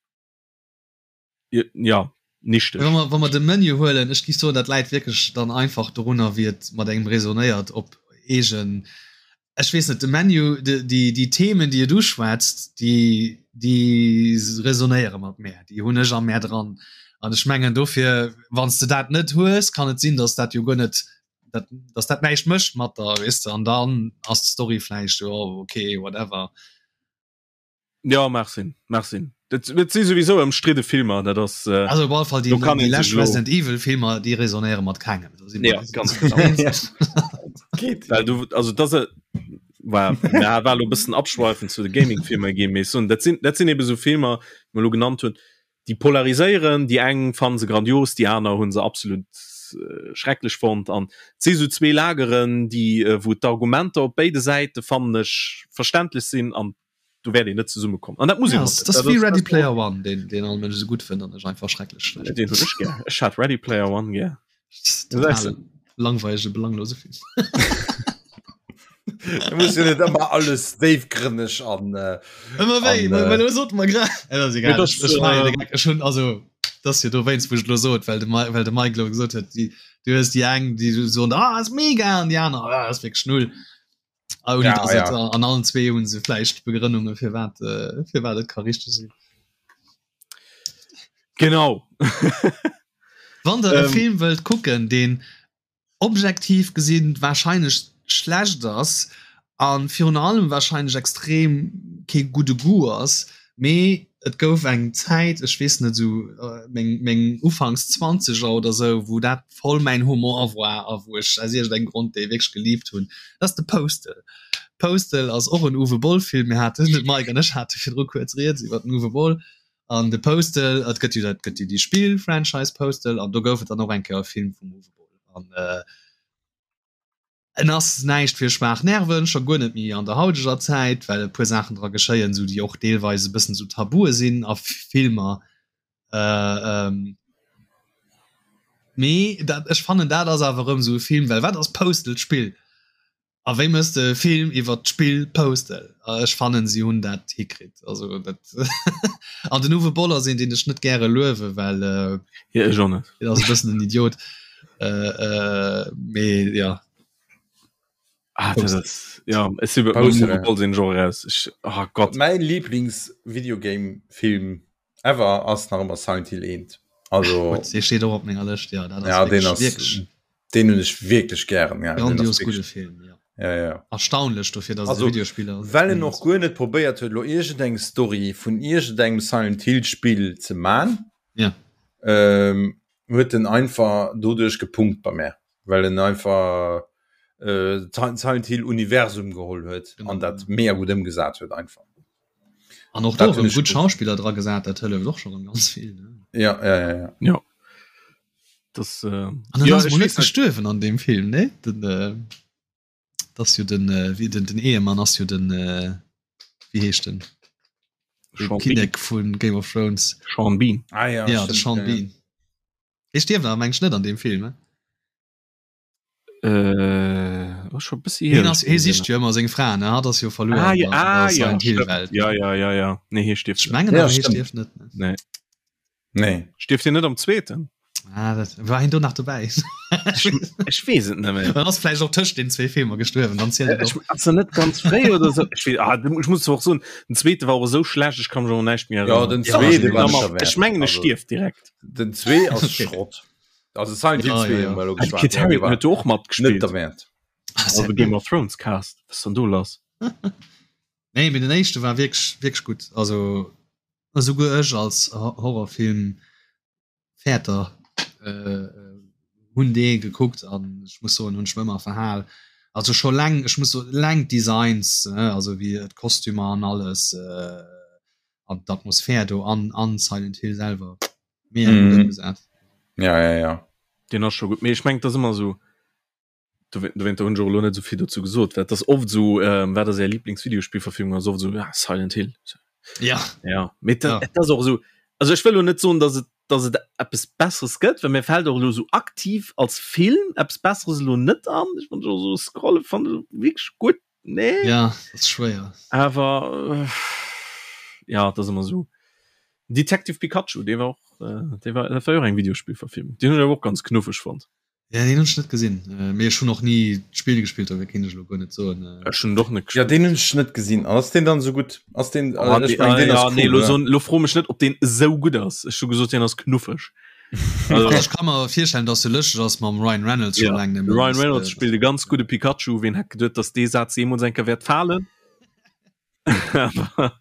ja nichteg. Wa mer wa mer de Menu huelen, ech géif soen dat läit wierklech dann einfach dorunner wéi et mat engem resonéiert op eegen ech weess net de Menu de déi déi Themen déi et uschwätzt déi déi resonéiere mat mär, déi hunn ech a mär dran an ech mengen dofir wann s de dat net hues kann et sinn, datt dat jo guer net dat, dass dat näischt mécht mat der weess de an dann ass d'Story vläicht jo okay whatever. Ja mag sinn, mag sinn. Dat, dat si souwisou ëmstridde Filmer, dat ass äh, Also op alle Fall déi, do kann déi een lescht sech lo- Resident Evil Filmer déi resonéiere mat kengem. Do si mer Ja, ganz genau. Geht. Well du also dat se war ja, war lo bëssen abschweifen zu de Gaming-Filmer gi mee so, dat sinn dat sinn ebe sou Filmer, déi mer lo genannt hunn, déi polariséieren, déi eng fannen se grandios, déi aner hunn se absolut schrecklech fonnt an et si sou zwee Lageren, déi wou d'Argumenter op béide Säite fannen ech verständlech sinn an do wäert een net zesumme kommen an dat muss een Ja, och net. das Dat wéi ass Ready dat Player One, deen deen all Mënsch esou gutt fënnt an ech einfach schrecklech schlecht. Deen hunn ech gär. Ech hat Ready Player One gär. Total langweilege, belanglose Film. Du muss jo net ëmmer alles déifgrënneg an äh, Ëmmer wéi, An, well äh, well sot mer grad. Äh, das ist egal. Mee das, Ech, ech maachen äh, de Gag. Ech hunn also das jo dowéinst wou ech lo sot, well de Ma well de Mike lo gesot huet, déi du hues déi eng, déi soen ah ass mega an déi aner ah ass wierklech null. Ah, ouni Ja, dass et ja. an allen zwee hunn se vläicht Begrënnunge firwat äh, firwat et ka richteg sinn. Genau. Wann der e Ähm. Film wëllt kucken, deen objektiv gesinn wahrscheinlech schlecht ass a virun allem wahrscheinlech extrem kee gudde Goût ass, mee et gouf eng Zäit, ech weess net, esou meng meng ufanks Zwanzeger oder esou, wou dat voll mäin Humor war a wou ech aus iergendengem Grond dee wierklech gelieft hunn, dat ass de Postal. Postal ass och en Uwe Boll Film. Mir haten, de Mike an ech hate virdru kuerz rieds iwwer den Uwe Boll an de Postal. Et gëtt jo dat gëtt jo déi Spill-Franchise Postal an do gouf et dann och eng Kéier e Film vum Uwe Boll an äh, en ass näischt fir schwaach Nerven, scho guer net méi an der hauteger Zäit, well e puer Saachen dra geschéien, sou déi och deelweis e bëssen sou Tabue sinn a Filmer. Äh, ähm, mee dat, ech fannen dat ass awer erëm sou e Film, well wat ass Postal? D'Spill. A wéi mëss de e Film iwwer d'Spill Postal? A ech fannen si hunn dat hikritt. Also dat an den Uwe Boll ass een, deen ech net gäre luewe well äh, Ja, ech och net. deen ass e bëssen en Idiot. Äh, äh, mee ja. Ah, dat ass, ja, ech si beim Postal, Uwe ja. Boll sinn ech och eraus. Ech, oh Gott. Mäin Lieblings-Videogame-Film ever ass nach ëmmer Silent Hill 1. Also Gutt, dee steet och op menger Lëscht, ja, dat ass ja, den wierklech, ass wierklech den hunn ech wierklech gären. Ja, den ass grandios wierklech gudde Film, ja. ja, ja. Erstaunlech dofir, dass et e Also Videospill ass. well en och guer net probéiert huet lo iergendeng Story vun iergendengem Silent Hill Spill ze man, Ja. ähm, huet en einfach doduerch gepunkt bei mär, well en einfach äh, d'Silent Hill Universum geholl huet Genau, an dat ja. mega gutt ëmgesat huet einfach. An och do Dat hunn erëm ech gutt gutt. Schauspiller dra gesat, dat hëlleft och scho rëm ganz vill, ne? Ja, ja, ja, ja. Ja. Das, äh, An dann ja, ass ech mol net weess net. gestuerwen an deem Film, ne? Den, äh, das jo den, äh, wie den, den Ehemann ass jo den, äh, wéi heescht den? De Sean Bean. Kinnek vun Game of Thrones. Sean Bean. Ah, ja, Ja, de stimmt, Sean ja, ja. Bean. Dee stierft awer meng ech net an deem Film, ne? Äh, oh, schon bëssi hier. Hien ass, hie sicht jo ëmmer seng Fra, ne? Hatt ass jo verluer Ah, an ja, der, an ah, der ja, Silent Hill stimmt. Welt. Ja, ja, ja, ja. Nee, hie stierft Ech net. mengen Ja, awer, hie stimmt. stierft net, ne? Nee. Nee. Stierft hien net am zweeten? Ah, dat, war hien do nach dobäi? Ech, ech weess et net méi. Dann ass vläicht och tëscht den zwee Filmer gestuerwen, dann zielt et Ech, och. ass er net ganz fréi oder so? Ech, weess, ah, ich muss och soen, den zweete war och esou schlecht, ech kann mech och näischt méi Ja, erënneren. den Ja, zweete war Am- nicht derwäert. Ech mengen, e Also, stierft direkt. den zwee ass Okay. Schrott. Also Silent Hill Ja, 2 ja, ja. hu mer elo Ah, geschwat, Kit ja, dee Harington war huet do och net matgespillt. derwäert. Also Game of Thrones Cast. Was ist denn do lass? Nee, mee den éischte war wierklech, wierklech gutt. Also esouguer ech als Horrorfilm Fäerter äh, hunn dee gekuckt an ech muss soen, hunn ech mech ëmmer verhal. Also scho leng, ech muss soen, leng d'Designs, ne, also wéi d'Kostümer an alles äh, an d'Atmosphär do an an Silent Hill selwer mega gutt Mhm. ëmgesat. Ja, ja, ja. Deen ass scho gutt. Mee ech mengen, et ass ëmmer esou, dowéinter hunn ech och elo net esou vill dozou gesot, well et ass oft esou, ähm, wat ass Är Lieblingsvideospillverfilmung, ass oft esou, ja, Silent Hill. Ja. Ja, mee Ja. et ass och esou, also ech wëll elo net soen, dass et, dass et eppes Besseres gëtt, well mir fält och elo esou aktiv als Film eppes Besseres elo net an. Ech wann ech och esou scrolle fannen ech wierklech gutt, nee. Ja, dat ass schwéier. Awer äh, ja, et ass ëmmer esou. Detective Pikachu, dee war och, äh, dee war, dat war jo och eng Videospillverfilmung, deen hunn ech awer och ganz knuffeg fonnt. Ja, deen hunn ech net gesinn, mee ech hunn och ni d'Spill gespillt, dofir kéint ech elo guer net soen. Ech hunn et och net Ja, gespillt. deen hunn ech net gesinn. An ass deen dann esou gutt? Ass deen, Oh, ech dee, meng, ah, deen ass ja, nee, cool, lo oder? soen, lo fro mech net, ob deen esou gutt ass. Ech hu gesot, deen ass knuffeg. Also, Also ech ka mer virstellen, dass e lëschteg ass mam Ryan Reynolds scho ja, laang de net méi. Ryan Reynolds spillt e ganz gudde Pikachu. Ween hätt geduet, dass dee Saz jeemools eng Kéier wäert falen? Awer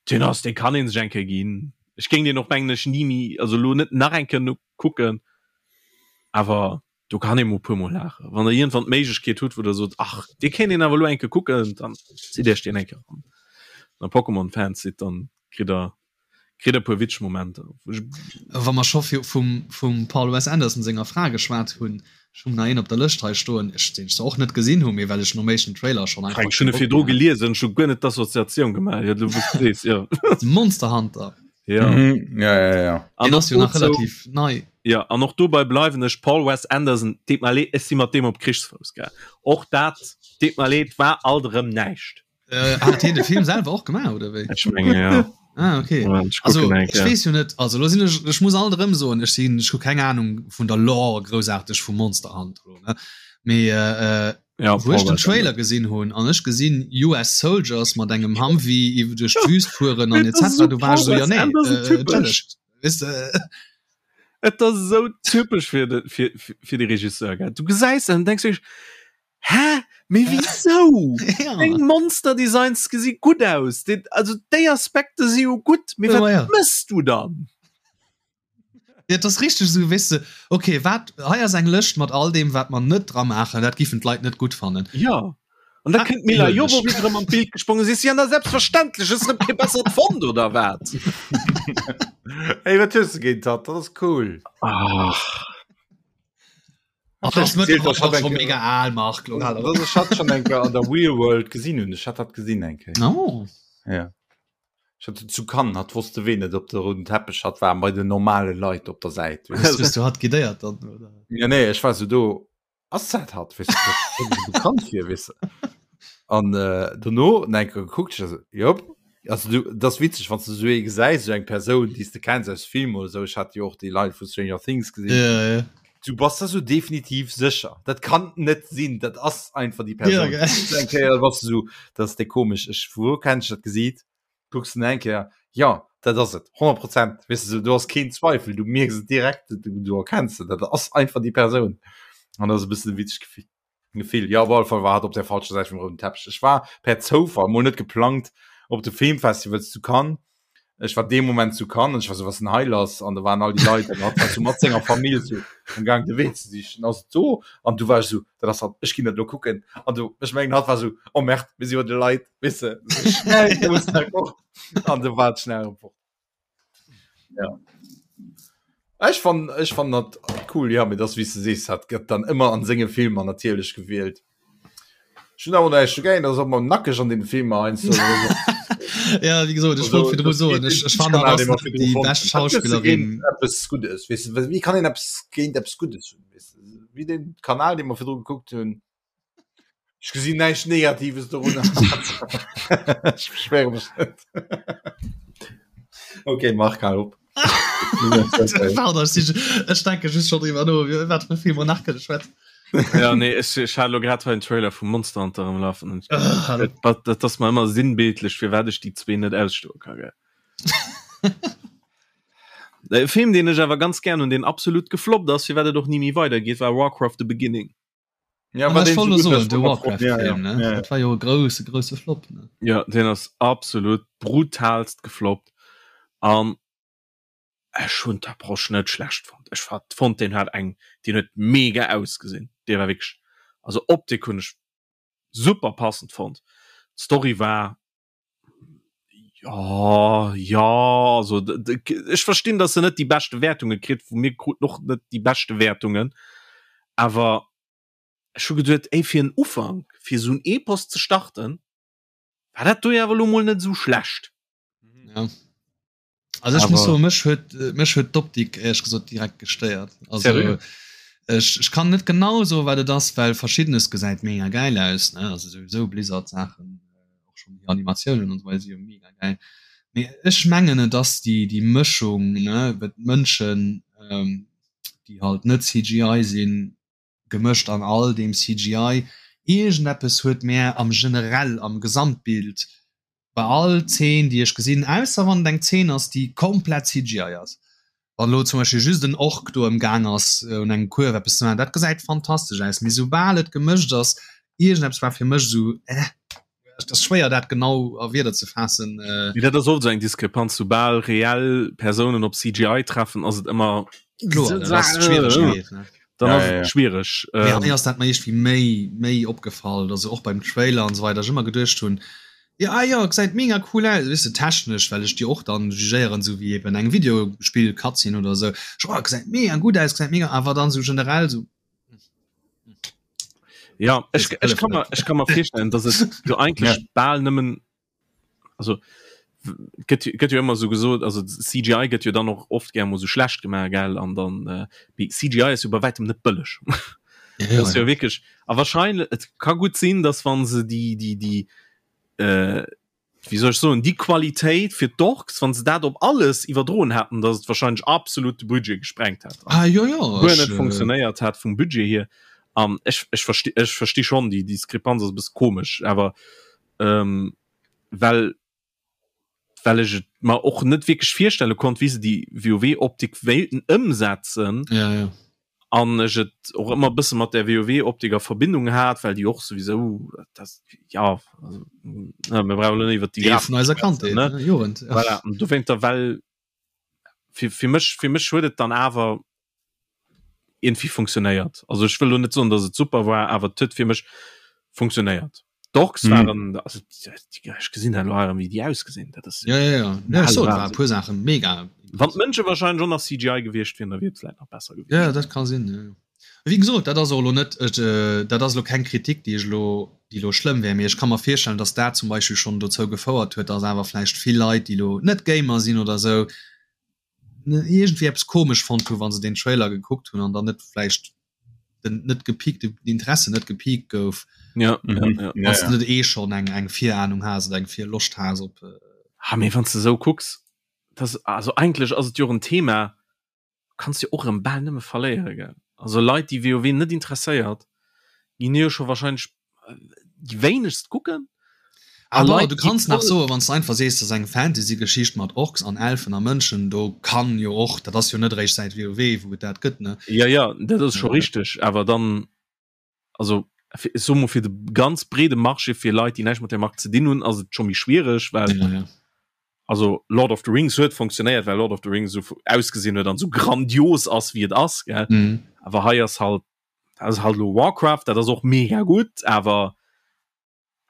deen ass, dee kann ee sech eng Kéier ginn. Ech géing deen och, mengen ech, ni méi, also lo net nach eng Kéier kucken, awer do kann ee mol puer mol laachen. Wann der iergendwann d'Méiglechkeet hutt, wou der sot, ach dee kéint een awer elo eng Kéier kucken, dann zitt iech deen eng Kéier eran. Wann der Pokémon-Fans sidd, dann kritt der kritt der e puer witzeg Momenter. Wa mer scho vum vum Paul Wes Anderson senger Fra geschwat hunn, ech hunn nach een op der Lëscht hei stoen, ech deen ech zwar och net gesinn hunn, mee well ech nom éischten Trailer schonn einfach Frank, ech hunn kee e Bock virdru méi hat. geliesen, ech hu guer net d'Assoziatioun gemaach, jo, du weess, jo. Monster Hunter. Ja. Mhm. Ja, ja, ja. An Den och ass jo nach dozou, relativ nei. ja, an och dobei bleiwen ech, Paul Wes Anderson, deet mer leed, ech si mat deem op Krichsfouss, gell. Och dat, deet mer leed, war alt erëm näischt. Äh, hat hien de Film selwer och gemaach oder wéi? Ech menge ja. Ah, okay. Moment, ech Also kucken eng ech Kéier. weess jo net, also lo sinn ech, ech muss alt erëm soen, ech sinn, ech hu keng Ahnung vun der Lore groussaarteg vu Monster Hunter lo, ne? Mee äh, äh, Ja, wou ech Paul den Wes Trailer gesinn hunn an ech gesinn US Soldiers mat engem Humvee iwwer duerch d'Wüst fueren an Et ass etc. esou Du war Paul ech so, ja Wes nee, Anderson äh, typesch. entschëllegt. Weess de, Et ass esou typesch fir de, fir, fir de Regisseur, gell. Du gesäis en an denks dech, Hä? Mee wisou? ja. Deng Monster Designs gesi gutt aus. Déi, also déi Aspekte si jo gutt, mee Ja, wat ja. mëss du dann? Ja, das richtig so weißt du, okay wat hei ass eng Lëscht mat all dem wat man net dra maachen, dat giffen d'Leit net gutt fannen. Ja. An da kënnt d'Milla Jovovich erëm an d'Bild gesprongen, sees si, an da selbstverständlech, hues de erëm kee bessert fonnt oder wat? Ey, wat hues de géint hatt? Dat ass cool. Ach. Ach, das ist mittlerweile schon mega al, Marc. Ech hat schon eng Kéier an der Real World gesinn hunn. Ech hat dat gesinn eng Kéier. Oh. Ja. Ech hat zu Cannes, hat wosste ween et op der rouden Teppech hat war bei den normale Leit op der Säit. Hues du hat guidéiert dann oder? Ja nee, ech war so do ass dat hat weess du, dat bekannt fir weess du. An äh, dono enke gekuckt, ech so, jop. Also du, das witzeg, wann du so ee gesäis, so eng Persoun, déi s de kenns aus Film oder sou. Ech hat jo och déi Leit vu Stranger Things gesinn. Ja, ja. Du bass da so definitiv sécher. Dat kann net sinn, dat ass einfach déi Persoun. Ja, gell. Eng Kéier bass du so, dat ass déi komesch. Ech, vu wou kenn ech dat Gesiit? Kucks den eng Kéier, ja, dat ass et, 100 Prozent. Weess du, du hast keen Zweifel, du mierks et direkt, du, du erkenns et, dat ass einfach déi Persoun. An dat ass e bëssen e witzegt Gefill. Gefill. Ja, op alle Fall war hat op der falscher Säit vum rouden Teppich. Ech war per Zoufall, mol net geplangt, op de Filmfestivals zu Cannes. Ech war dee Moment zu Cannes an ech war so, was denn hei lass? An da waren all déi Leit an hat war so mat senger Famill so am Gang de Wee ze sichen. Ass et do? An du war ech so, dat ass hat, ech ginn dat lo kucken. An du, ech mengen hat war so, oh merde, mir si bei de Leit, weess de, so schnell, du musst da fort. An du war et schnell erëm fort. Ja. Ech fan ech fan dat cool ja mir das wie du sees hat gëtt dann ëmmer an senge Filmer natierlech gewielt. Ech hunn awer näischt dogéint, ass och mol nackeg an den Filmer heiansdo. Ja wéi gesot ech wollt virdru soen ech ech fannen hatt ass net déi bescht Schauspillerin. Eppes Guddes weess de, wéi kann een eppes géint eppes Guddes hunn weess de, wéi den Kanal dee mer virdru gekuckt hunn. Ech gesinn näischt Negatives dorunner. Ech beschwere mech net. Okay, Marc, hal op. Pardon, ech si- ech denke just schon driwwer no, wie- wat fir Filmer nach kënne schwätzen. Ja, nee, ech, ech hat lo grad hei en Trailer vu Monster Hunter am Lafen. Und Ah, hallo. dat, dat ass mer ëmmer sinnbildlech, firwat ech déi zwee net ausstoe ka. Gell? E Film, deen ech awer ganz gern hunn, deen absolut gefloppt ass, firwat et och ni méi weidergeet, war Warcraft The Beginning. Ja, ah, war so, so de Warcraft ja, ja. ja, ja. Dat war jo grouse grouse Flop ne? Ja den ass absolut brutalst gefloppt an ech hunn d'Approche net schlecht fonnt. Ech hat fonnt den hat eng den huet mega ausgesinn. Dee war wierklech also Optik hunn ech super passend fonnt. D'Story war ja ja also ech verstinn, datt se net déi beschte Wäertunge kritt, vu mir krut och net déi beschte Wäertungen awer ech hu geduet, ey fir en Ufank, fir esou en Epos ze starten, war dat do jo awer elo mol net esou schlecht. Ja. Also ech muss soen, mech huet mech huet d'Optik éierlech gesot direkt gestéiert. Also ech, ech kann net genau soen, wat et ass, well verschiddenes gesäit mega gäil aus, ne, also souwisou Blizzard Saachen, och schonn déi Animatiounen an esou weider si jo mega gäil. Mee ech mengen et ass déi déi Mëschung, ne, well d'Mënschen, déi halt net CGI sinn, gemëscht an all deem CGI. Iergendeppes huet mär am generell, am Gesamtbild, bei all Zeen déi ech gesinn, ausser wann et eng Zeen ass déi komplett CGI ass, wann elo zum Beispill just en Ork do ëmgaang ass un engem Kuerf eppes ze maachen, dat gesäit fantastesch aus, mee soubal et gemëscht ass, iergendeppes war fir mech esou eh, et ass schwéier dat genau a Wierder ze faassen. Mee dat ass oft esou eng Diskrepanz, soubal reell Persounen op CGI treffen ass et ëmmer Kloer, dat ass d'Schwieregkeet, ne? Dann Ja, ass ja, et ja. schwiereg. Mee Ähm, hei ass dat mer iergendwéi méi méi opgefall, also och beim Trailer an esou weider, ech ëmmer geduecht hunn, jo ah jo gesäit mega cool aus, weess de, technesch, well ech déi och dann jugéieren, esou wéi eben eng Videospill-Cutscene oder esou, ech oh gesäit mega gutt aus, gesäit mega, awer dann esou generell esou ja, ech, Das ech kann hëlleft mer, net. ech kann mer virstellen, dass et jo eigentlech bal nëmmen also gëtt gëtt jo ëmmer sou gesot also CGI gëtt jo dann och oft gär mol sou schlecht gemaach gell an dann äh, mee CGI ass jo bei wäitem net bëlleg Ja, ja, ass jo ja. wierklech a wahrscheinlech et ka gutt sinn dass wann se déi déi déi äh, wéi soll ech soen déi Qualitéit fir d'Orks wann se dat op alles iwwerdroen hätten dass et wahrscheinlech absolut de Budget gesprengt hätt Ah jo jo guer ech net äh, funktionéiert hat vum Budget hier an ech ech versti ech versti schonn déi Diskrepanz ass e bësse komesch awer ähm, well well ech et mer och net wierklech virstelle konnt, wéi se déi WoW-Optik wéilten ëmsetzen. Ja, ja. An ech et och ëmmer e bësse mat der WoW-Optik a Verbindung hat, well déi och souwisou das, ja, also, na, mir brauchen elo net iwwer déi Deel vun eiser Grafik schwätzen, Kandheet, ne? ne? Jugend, ja. Voilà, an dowéinter, well fir, fir mech, fir mech huet et dann awer irgendwie funktionéiert. Also ech wëll lo net soen, datt et super war, awer et huet fir mech funktionéiert. D'Orks mhm. waren also, ech gesinn dat lo wéi déi ausgesinn dat ass ja, ja, ja. ja, so, war puer Sachen mega wann d'Mënsche wahrscheinlich schon nach CGI gewiescht wieren da wier et nach besser gewiescht ja dat kann sinn ja. Wéi gesot dat ass och lo net äh, dat ass lo keng Kritik déi ech lo déi lo schlëmm wär mee ech ka mer virstellen dass dat zum Beispill schonn dozou gefouert huet dass awer vläicht vill Leit déi lo net Gamer sinn oder sou iergendwéi eppes komesch fonnt hu wann se den Trailer gekuckt hunn an dann net vläicht den net gepiekt den Interesse net gepiekt gouf ja, mhm. ja, ja. Wann ja. net eh schon eng eng Virahnung has oder eng Virloscht has op äh ha mee wann du sou kucks das also eigentlech ass et jo en Thema kanns jo och erëm bal nëmme verléiere gell also Leit déi WoW net interesséiert ginn jo scho wahrscheinlech déi wéinegst kucken. A Leit, du kanns nach soen, wann s de einfach sees, dat ass eng Fantasy-Geschicht mat Orks an Elfen a Mënschen, do kann jo och, dat ass jo net eréischt säit WoW, wou et dat gëtt, ne? Jo, jo, dat ass scho richteg, awer dann, also ech soe mol, fir de ganz breede Marché, fir Leit, déi näischt mat där Mark ze dinn hunn, ass et scho méi schwiereg, well ja, ja. also Lord of the Rings huet funktionéiert, well Lord of the Rings esou ausgesinn huet an esou grandios ass, wéi et ass, gell? Mhm. Awer hei ass halt das halt lo Warcraft dat ass och mega gut awer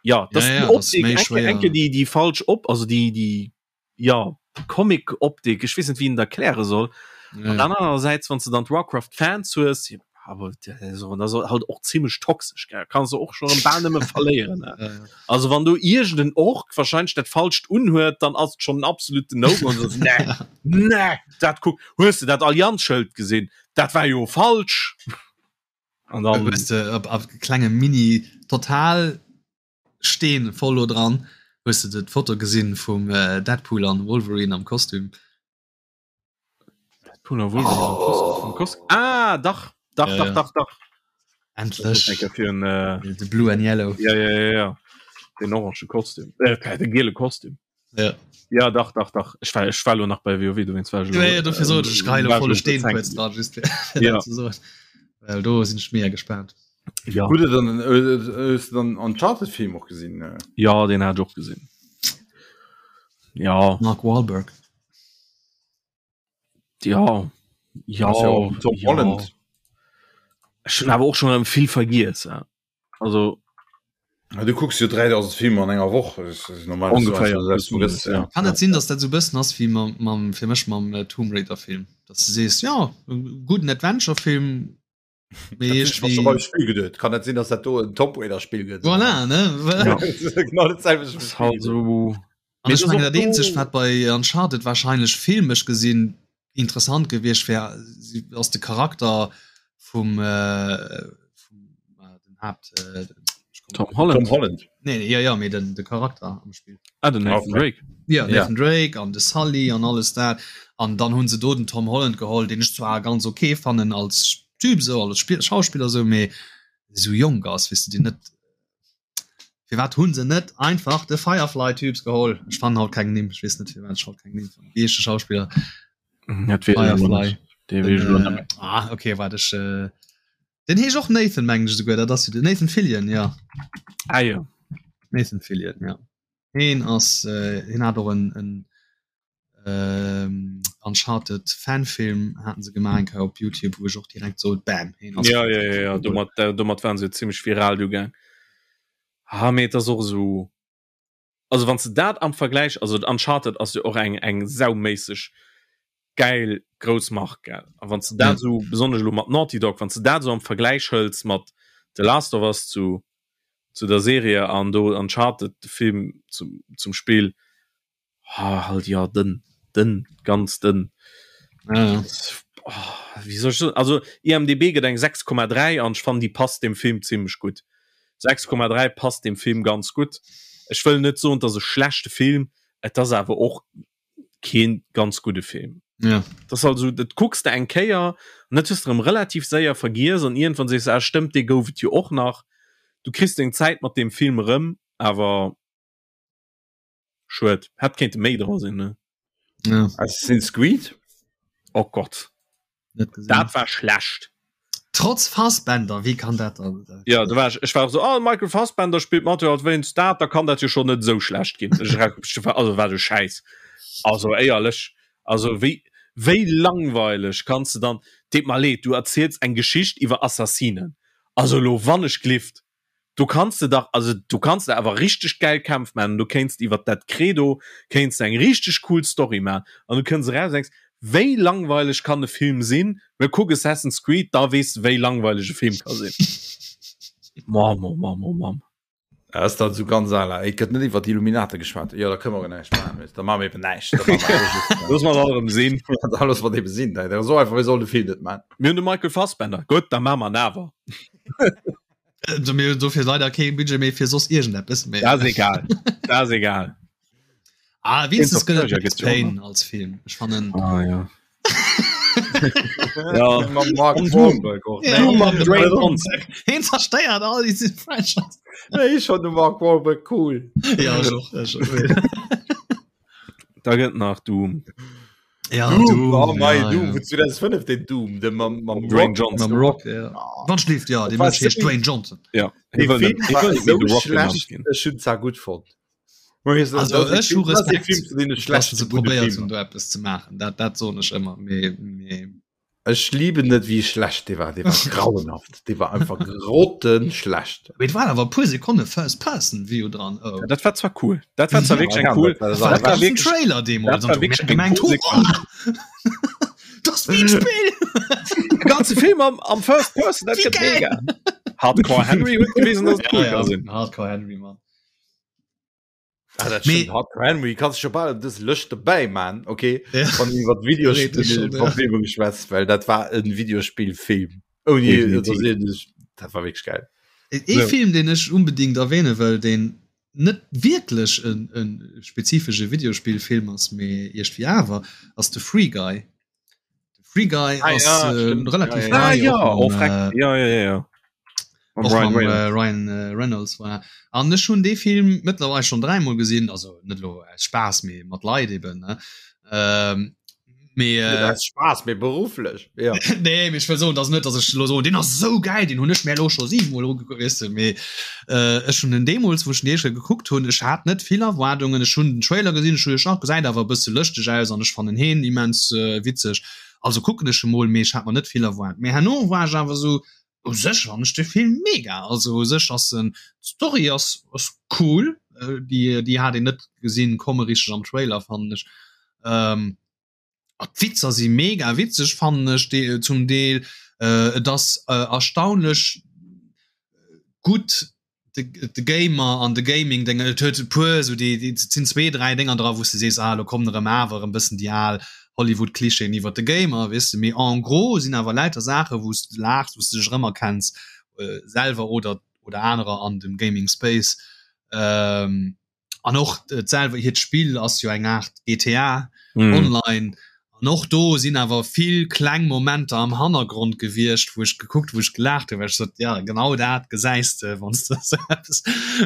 ja das ja, ja, Optik, enke, enke die die falsch op also die die ja Comic Optik ich wissen wie der erkläre soll ja. dann andererseits wann du dann Warcraft Fans hues aber so das halt och ziemlich toxisch gell? kannst du och schon am Bahn immer verlieren ne? ja, ja. also wann du irgend den Ork wahrscheinlich dat falscht unhört dann ass schon absolute no so, nee, nee, dat guck hues du dat Allianzschild gesinn Dat war jo falsch. An dann hues de op op klenge Mini total Steen voll lo dran. Hues de d'Foto gesinn vum äh, Deadpool an Wolverine am Kostüm? Deadpool an Wolverine am Kostüm. Am Kostüm. Ah, dach, dach, Ja, dach, ja. dach, dach. Endlech. Fir en, äh, De Blue and Yellow. ja, ja, ja, ja. Den orange Kostüm. Äh, de giele Kostüm. Ja. Ja, dach, dach, dach. Ech war, ech war lo nach bei WoW, dowéinst war ech Ja, ja, dofir sot ech, ech gehe lo volle Steen kurz kurz dran, just fir, fir Ja. dat ze soen. Well do sinn ech mega gespaant. Ja. Hutt der dann, äh, hues du dann Uncharted-Film och gesinn? Äh? Ja, den hat ech och gesinn. Ja. Mark Wahlberg. Ja. Ja. Ass ja och Tom ja. Holland. Ech hunn awer och schon erëm vill vergiess. Ja. Also Ja, du kucks jo 3000 Filmer an enger Woch normal Ongeféier, plus minus, ja. Kann et sinn, dass dat sou bëssen ass wéi mam, mam fir mech mam äh, Tomb Raider Film, dass du sees ja e gudden Adventure Film mee iergendwéi Spiel geduet. Kann net sinn, dass dat do en Tomb Raider Spiel gëtt. Voilà, ne? Ja. Genau dat selwecht Ass halt so. An Mee ech et ass mengen och dat eenzegt do- wat bei Uncharted wahrscheinlech filmesch gesinn interessant gewiescht wär ass de Charakter vum äh, vum äh, den Haupt äh, Tom Holland. Tom Holland. Nee, nee, ja, ja, mee den, de Charakter am Spiel. Ah, den Nathan Okay. Drake. Ja, Ja. Nathan Drake an de Sully an alles dat. An dann hunn se do den Tom Holland geholl, deen ech zwar ganz okay fannen als Typ sou, als Spiel Schauspiller sou, mee sou jonk ass, weess de, deen net Firwat hunn se net einfach de Firefly-Typs geholl? Ech fannen haut keng Nimm, ech weess net firwat ech haut keng Nimm fannen. Wéi heescht de Schauspiller? Dat weess ech elo Firefly. net. Dee weess ech elo net méi. Ah, okay, waart ech äh, den heescht och Nathan mengen ech esouguer, dat ass jo den Nathan Fillion, ja. Ah jo. Nathan Fillion, ja. Heen ass äh, heen hat och en, en ähm, Uncharted Fanfilm haten se gemaach eng Kéier op Youtube, wou ech och direkt sot, bam, heen ass Ja, ja, ja, ja. Domat, äh, domat waren se zimmlech viral du gaang. Ah, mee et ass och esou. Also wann s de dat am Vergläich, also Uncharted ass jo och eng eng sauméisseg gäil grouss Mark, gell? A wann s de dat esou, besonnesch elo mat Naughty Dog, wann s de dat esou am Vergläich hëls mat The Last of Us zu zu der Serie an do Uncharted de Film zum zum Spill, Ah, halt ja dënn, dënn, ganz dënn. Ja, ja. Oh, wéi soll ech soen? Also IMDb gëtt eng 6,3 an ech fannen déi passt dem Film zimmlech gutt. 6,3 passt dem Film ganz gutt. Ech wëll net soen, et ass e schlechte Film, et ass awer och keen ganz gudde Film. Ja. Dat ass also, dat kucks de eng Kéier an dat hues de erëm relativ séier vergiess an iergendwann sees de, ah stëmmt, dee gouf et jo och nach. Du kriss deng Zäit mat deem Film erëm, awer Schued, hätt kéinte méi dra sinn ne. Ja. Assassin's Creed? Oh Gott. Net gesinn. Dat war schlecht. Trotz Fassbender, wéi kann dat dann? Ja, do war ech, ech war och so, oh, Michael Fassbender spillt mat, jo, wéinst dat, da kann dat jo schon net esou schlecht ginn. Ech ra- Also wat e Schäiss. Also éierlech, also wéi, wéi langweileg kanns de dann, deet mer leed, du erziels eng Geschicht iwwer Assassinen. Also elo wann ech glift. Do kanns de dach, also do kanns de awer richteg gäil Kämpf maachen, du kéints iwwert dat Credo kéints de eng richteg cool Story maachen an du kënns eraus an denks, wéi langweileg kann e Film sinn? Mä kuck Assassin's Creed, da weess de wéi langweileg e Film ka sinn. Mamm, oh Mamm, oh Mamm. Dat ass dann esou ganz à la, et gëtt net iwwer d'Illuminate geschwat, jo da kënne mer och näischt maachen, weess de, da maache mer eben näischt. Da maache mer just, Looss mer dat erëm sinn. Da loosse mer et eben sinn, dat ass esou einfach, mir sollen de Film net maachen. Mir hunn de Michael Fassbender, gutt, da maache mer en awer. Also mir hunn dofir leider kee Budget méi fir soss iergendeppes méi. Dat ass egal. Dat ass egal. Ah, wenigstens gëtt et Max Payne als Film. Ech fannen. Ah, ja. ja. Mam Mark Wahlberg och. Ja. Mam Dwayne Johnson. Hien zerstéiert all déi Franchise. Nee, ech fannen de Mark Wahlberg cool. Ja, ech och. Ech och. Da gëtt nach Doom. Ja, Doom, Doom, oh mei, ja, Doom ja. vun 2005, den Doom, de mam, mam Dwayne Johnson. Mam Rock, ja. Oh. Wann schläft, ja, de Mënsch heescht Dwayne Johnson. Ja. Dee Film war esou schlecht, ech hunn zwar gutt fonnt. Also ech hu Respekt, dass se probéiert hunn do eppes ze maachen. Dat, dat soen ech ëmmer. Mee, mee Ech lieben net wéi schlecht dee war, dee war grauenhaft, dee war einfach grottenschlecht. Mee et waren awer e puer Sekonne First Person View dran. Oh. Ja, dat war zwar cool. Dat war zwar wierklech eng cool. Dat war, war wierklech Trailer deemools. Dat war wierklech eng cool Sequenz. Dat ass wéi en Spill. E ganze Film am, am First Person, dat gëtt mega. Hardcore Henry huet gewisen, dass et cool ja, ka sinn. Hardcore Henry, Mann. Ah, dat Mee- stimmt. Hardcore Henry kannst schon bal dës Lëscht dobäi man okay Ja. wann iwwer Theoretisch schon, ja. Videospielverfilmung geschwätzt well dat war en Videospielfilm ouni Definitiv. dass een sech- dat war wierklech geil Ee So. Film, deen ech unbedingt erwähne wëll, deen net wierklech en, en spezifesche Videospillfilm ass, mee iergendwéi awer, ass de Free Guy. De Free Guy Ah, ass ja, äh, stimmt. relativ Ja, ja. Ah, nei, ja, och oh, mam, freck. äh, Ja, ja, ja, ja. Mam och Ryan mam äh, Reynolds. Ryan äh, Reynolds voilà. An ech hunn dee Film mëttlerweil schon dräimol gesinn, also net lo aus Spaass, mee mat Leit eben ne. Ähm, mee Net äh, aus Spaass mee berufflech ja nee, mee ech wëll soen, dass net, dass ech lo soen, deen ass esou gäil, deen hunn ech mir elo scho siwemol ugekuckt, weess de, mee äh, ech hunn en deemools, wou ech den éischte gekuckt hunn, ech hat net vill Erwaardungen, ech hunn den Trailer gesinn, ech hu gedacht, gesäit awer e bësse lëschteg aus an ech fannen heen immens äh, witzeg, also kucken ech e mol, mee ech hat mer net vill erwaart. Mee herno war ech awer esou, u sech fannen ech de Film mega, also u sech ass en, d'Story ass ass cool, äh, déi déi hat een net gesinn komme richteg am Trailer fannen ech. Ähm, a d'Witzer si mega witzeg fannen ech de zum Deel, äh, et ass äh, erstaunlech gutt de, de Gamer an de Gaming Dénger, et huet e puer esou déi, déi et sinn zwee, dräi Dénger dra wou s de sees, ah elo kommen erëm awer e bëssen déi al Hollywood-Klischeeën iwwer de Gamer, weess de, mee en gros sinn awer lauter Saache wou s de laachs, wou s de dech erëmerkenns selwer oder oder anerer an dem Gaming Space. Ähm, an och selwer hiert Spill ass jo eng Art GTA mm. online an och do sinn awer vill kleng Momenter am Hannergrond gewiescht, wou ech gekuckt, wou ech gelaacht hunn, well ech sot, ja genau dat gesäis de wann s de eppes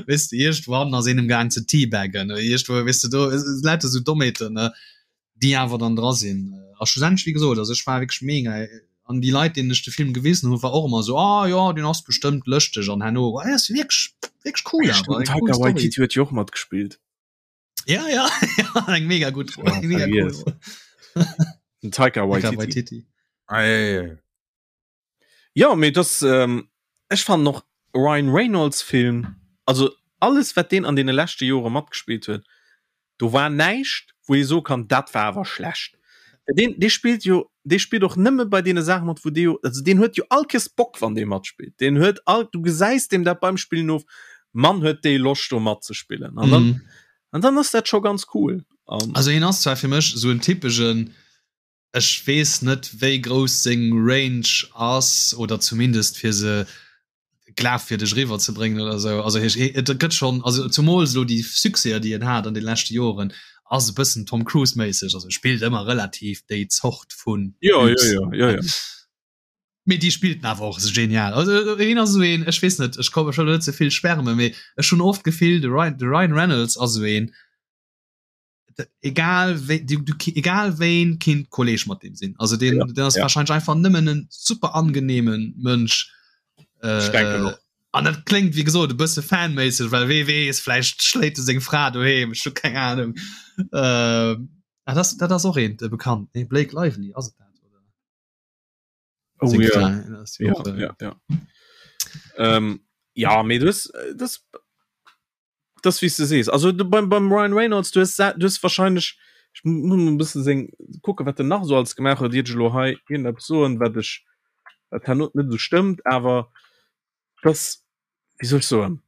weess de iergendwann ass een amgaang ze teabaggen oder iergendwou weess de do lauter sou Dommheeten ne. déi awer dann dra sinn. A schlussendlech, wéi gesot, also ech war wierklech mega an déi Leit, deenen ech de Film gewisen hunn, war och ëmmer esou, ah jo, deen ass bestëmmt lëschteg an herno, ah, ass wierklech, wierklech cool awer, eng cool Taika Story. Waititi huet jo och matgespillt. Ja, ja, ja, eng mega gutt Roll, eng mega cool vergiess. Roll. Den Taika Taika Waititi. Waititi. Ah, ja, ja, ja. Ja, mee das ähm, ech fannen och Ryan Reynolds Film, also alles wat deen an deene leschte Jore matgespillt huet, do war näischt wou ee soe kann, dat war awer schlecht. Deen dee spillt jo dee spillt och nëmme bei deene Saache mat wou dee jo also deen huet jo all Kees Bock wann dee matspillt. Deen huet all du gesäis deem dat beim Spillen of, Mann huet dee Loscht do matzespillen an dann Mhm. an dann ass dat scho ganz cool. An Also hien ass zwar fir mech esou en typegen Ech weess net wéi grouss seng Range ass oder zumindest fir se glafwierdeg eriwwer ze bréngen oder esou. Also hie et gëtt schonn, also zumools elo déi Succèser déi en hat an de leschte Joren ass e bëssen Tom Cruise méisseg, also e spillt ëmmer relativ déi Zort vun Jo, jo, Typs. jo, jo, jo. Mee déi spillt en awer och esou genial. Also hien ass esou een, ech weess net, ech komm ech wëll elo net ze vill schwärmen, mee ech hunn oft d'Gefill de Ryan de Ryan Reynolds ass esou een, egal wéi du, du egal wéin kinnt Kolleg mat dem sinn also den, ja, den ass ja. wahrscheinlich einfach nëmmen en super angenehmen Mënsch äh, an dat klingt wie gesot e bësse fanméisseg well wee weess vläicht schléit e seng Fra doheem ech hu keng Ahnung äh, ah, das, dat ass och een de bekannt nee Blake Lively ass et dat oder oh, ja. Ja, ja, ja. Ähm, ja. Ja mee du hues äh, das das wéi s de sees. Also du beim, beim Ryan Reynolds du hues du hues wahrscheinlech ech muss mol e bëssen seng kucke wat en nach esou alles gemaach huet, iert ech elo hei iergendeppes soen wat ech wat herno net esou stëmmt, awer das wéi soll ech soen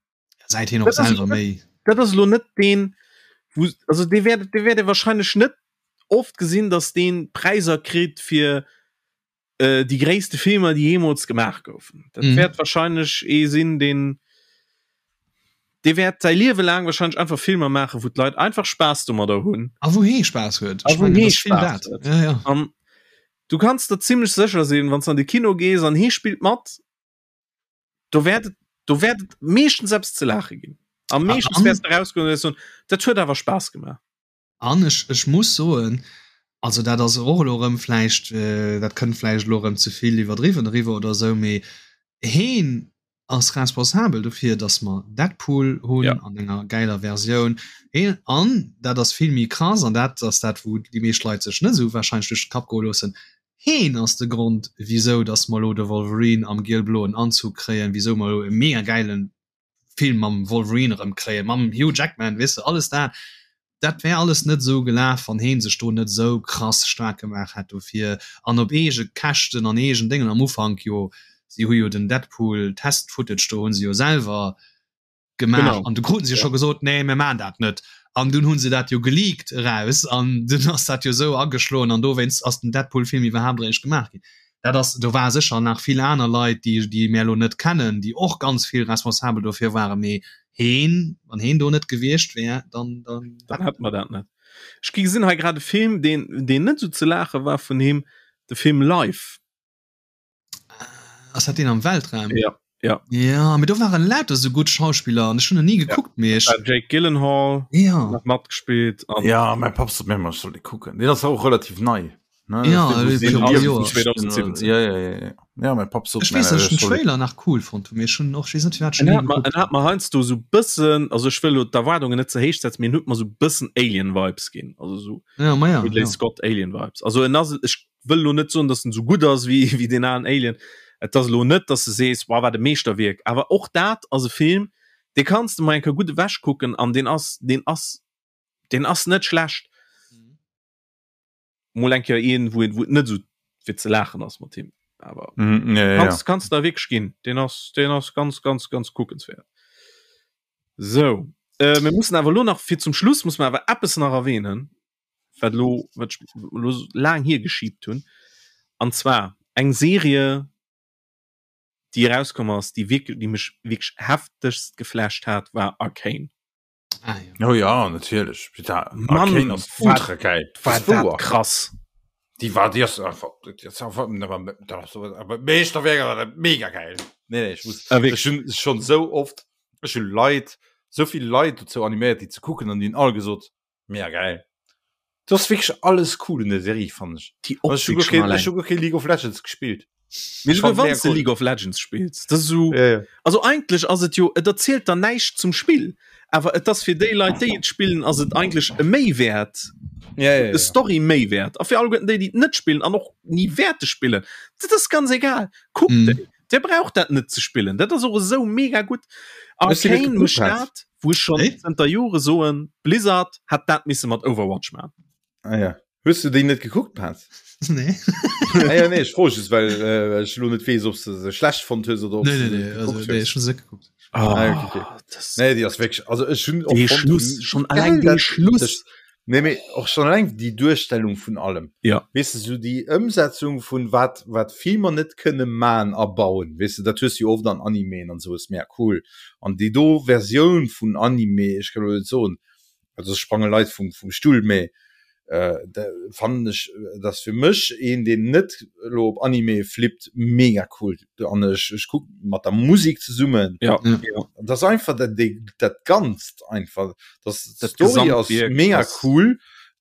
Säit hien och selwer méi. Dat ass elo net deen wou also dee wäert dee wäert ee wahrscheinlech net oft gesinn, datt deen Präisser kritt fir äh, déi gréisste Filmer, déi jeemools gemaach goufen. Dat mhm. wäert wahrscheinlech ee sinn, deen dee wäert säi Liewe laang wahrscheinlech einfach Filmer maachen, wou d'Leit einfach Spaass domadder hunn. A wou hee Spaass huet. A wou hee Spaass huet. Ja, ja. An du kanns der zimmlech sécher sinn, wann s an de Kino gees an hee spillt mat, do wäert et, do wäert et meeschtens eppes ze laache ginn. A meeschtens wäers de rausgoen an wäers soen, dat huet awer Spaass gemaach. An ech, ech muss soen, also dat ass och elo erëm vläicht, dat kënnt vläicht elo erëm ze vill iwwerdriwwen eriwwer oder esou, mee heen ass responsabel dofir, datt mer Deadpool hunn ja. an enger gäiler Versioun. Heen, an dat ass vill méi krass, an dat ass dat, wou déi meescht Leit sech net esou warscheinlech duerch de Kapp goe loossen, Heen ass de Grond, wisou datt mer elo de Wolverine am giel-bloen Anzug kréien, wisou mer elo e mega gäile Film mam Wolverine erëm kréien, mam Hugh Jackman, weess de, alles dat, dat wär alles net esou gelaf, wann heen sech do net esou krass staark gemaach hätt dofir an op eege Käschten an eegen Déngen am Ufank jo, si hu jo den Deadpool Test Footage do hu se jo selwer gemaach an du kruten se jo scho gesot, nee mir maan dat net an dunn hu se dat jo geleakt eraus an dunn ass dat jo esou ageschloen an dowéinst ass den Deadpool Film iwwerhaapt eréischt gemaach ginn. Dat ass, do ware sécher nach vill aner Leit, déi, déi mär elo net kennen, déi och ganz vill responsabel dofir waren, mee heen, wann heen do net gewiescht wär, dann, dann. Dann hätte mer dat net. Ech gi gesinn hei grad e Film, deen, deen net esou ze laache war vun him, de Film Life. Ass dat deen am Weltraum? Ja, ja. Ja, mee do waren lauter esou gutt Schauspiller an ech hunn en ni gekuckt, mee ech. Jake Gyllenhaal ja. nach matgespillt. An ja, mäi Papp sot mir ëmmer, ech soll dee kucken. Deen ass och relativ nei. Ne? Ja, 2017. Ja, ja, ja, ja. Ja, mein Papp sot Ech weess, dass ech den Trailer nach cool fonnt hunn, mee ech hunn och, ech weess net firwat ech en ni gekuckt hunn. En hat mer heiansdo sou bëssen, also ech wëll elo d'Erwaardungen net ze héich setzen, mee en huet mer sou bëssen Alien Vibes ginn, also sou ja, ma ja, Ridley ja. Scott Alien Vibes. Also en ass, ech wëll elo net soen, dass en sou gutt ass wéi wéi deen alen Alien. Et ass elo net, dass de sees, wow, wat e Meeschterwierk. Awer och dat ass e Film, dee kanns de mol eng Kéier gutt ewech kucken an deen ass, deen ass, deen ass net schlecht. Mol eng Kéier een, wou wou et net esou fir ze laachen ass mat him. Awer mm, ja, ja, kanns, kanns der wierklech ginn. Deen ass, deen ass ganz, ganz, ganz kuckenswäert. Sou, äh, mir mussen awer elo nach fir zum Schluss muss mer awer eppes nach erwähnen, wat elo, wat ech elo laang hiergeschiebt hunn. An zwar eng Serie, déi erauskomm ass, déi wierklech, déi mech wierklech heftegst geflasht hat, war Arcane. Ah, ja. Oh ja, natierlech. Mann, ass ultra geil. War dat krass. Déi war déi ass einfach Meeschterwierk mega geil. Nee, nee, ech muss ah, ech hunn schon sou oft ech hunn Leit sou vill Leit dozou animéiert déi ze kucken an déi hunn all gesot mega geil. Du ass wierklech alles cool un der Serie fannen ech. Déi Optik schon allein. Ech hu guer kee League of Legends gespillt. Mee souguer wann s de League of Legends spills, dat ass esou, ja, ja. also eigentlech ass et jo, et erzielt der näischt zum Spill, awer et ass fir déi Leit, déi et spillen, ass et eigentlech e Méiwäert, ja, ja, ja. e Story-Méiwäert. A fir alleguerten déi, déi et net spillen an och ni wäerte spillen, dat ass ganz egal, kuckt mm. déi. Dir braucht dat net ze spillen, dat ass och esou mega gutt. Arcane mécht dat, wou ech schonn zënter Jore soen, Blizzard hätt dat misse mat Overwatch maachen. Ah ja. Hues du déi net gekuckt, Paz? Nee. ah, ja, nee, ech froe just, well äh, ech lo net weess, ob du se schlecht fonnt hues oder ob nee, nee, nee, also, nee, ech hun se gekuckt. Oh, ah, okay, okay. Das nee, déi ass wierklech, also ech hunn och Schluss, schon allein den Schluss. Das, nee, mee och schon allein déi Duerstellung vun allem. Ja. Weess du, sou déi Ëmsetzung vun wat, wat Filmer net kënne man a bauen, weess du, dat hues du jo oft an Animeen an sou, ass mega cool. An déi do Versioun vun Anime, ech kann lo net soen, also sprange Leit vum, vum Stull, mee äh, fannen ech dass fir mech een deen net lo op Anime flippt mega cool an ech ech kuck mat der Musik zesummen ja, ja. das einfach dat dat ganzt einfach das dat Story ass mega cool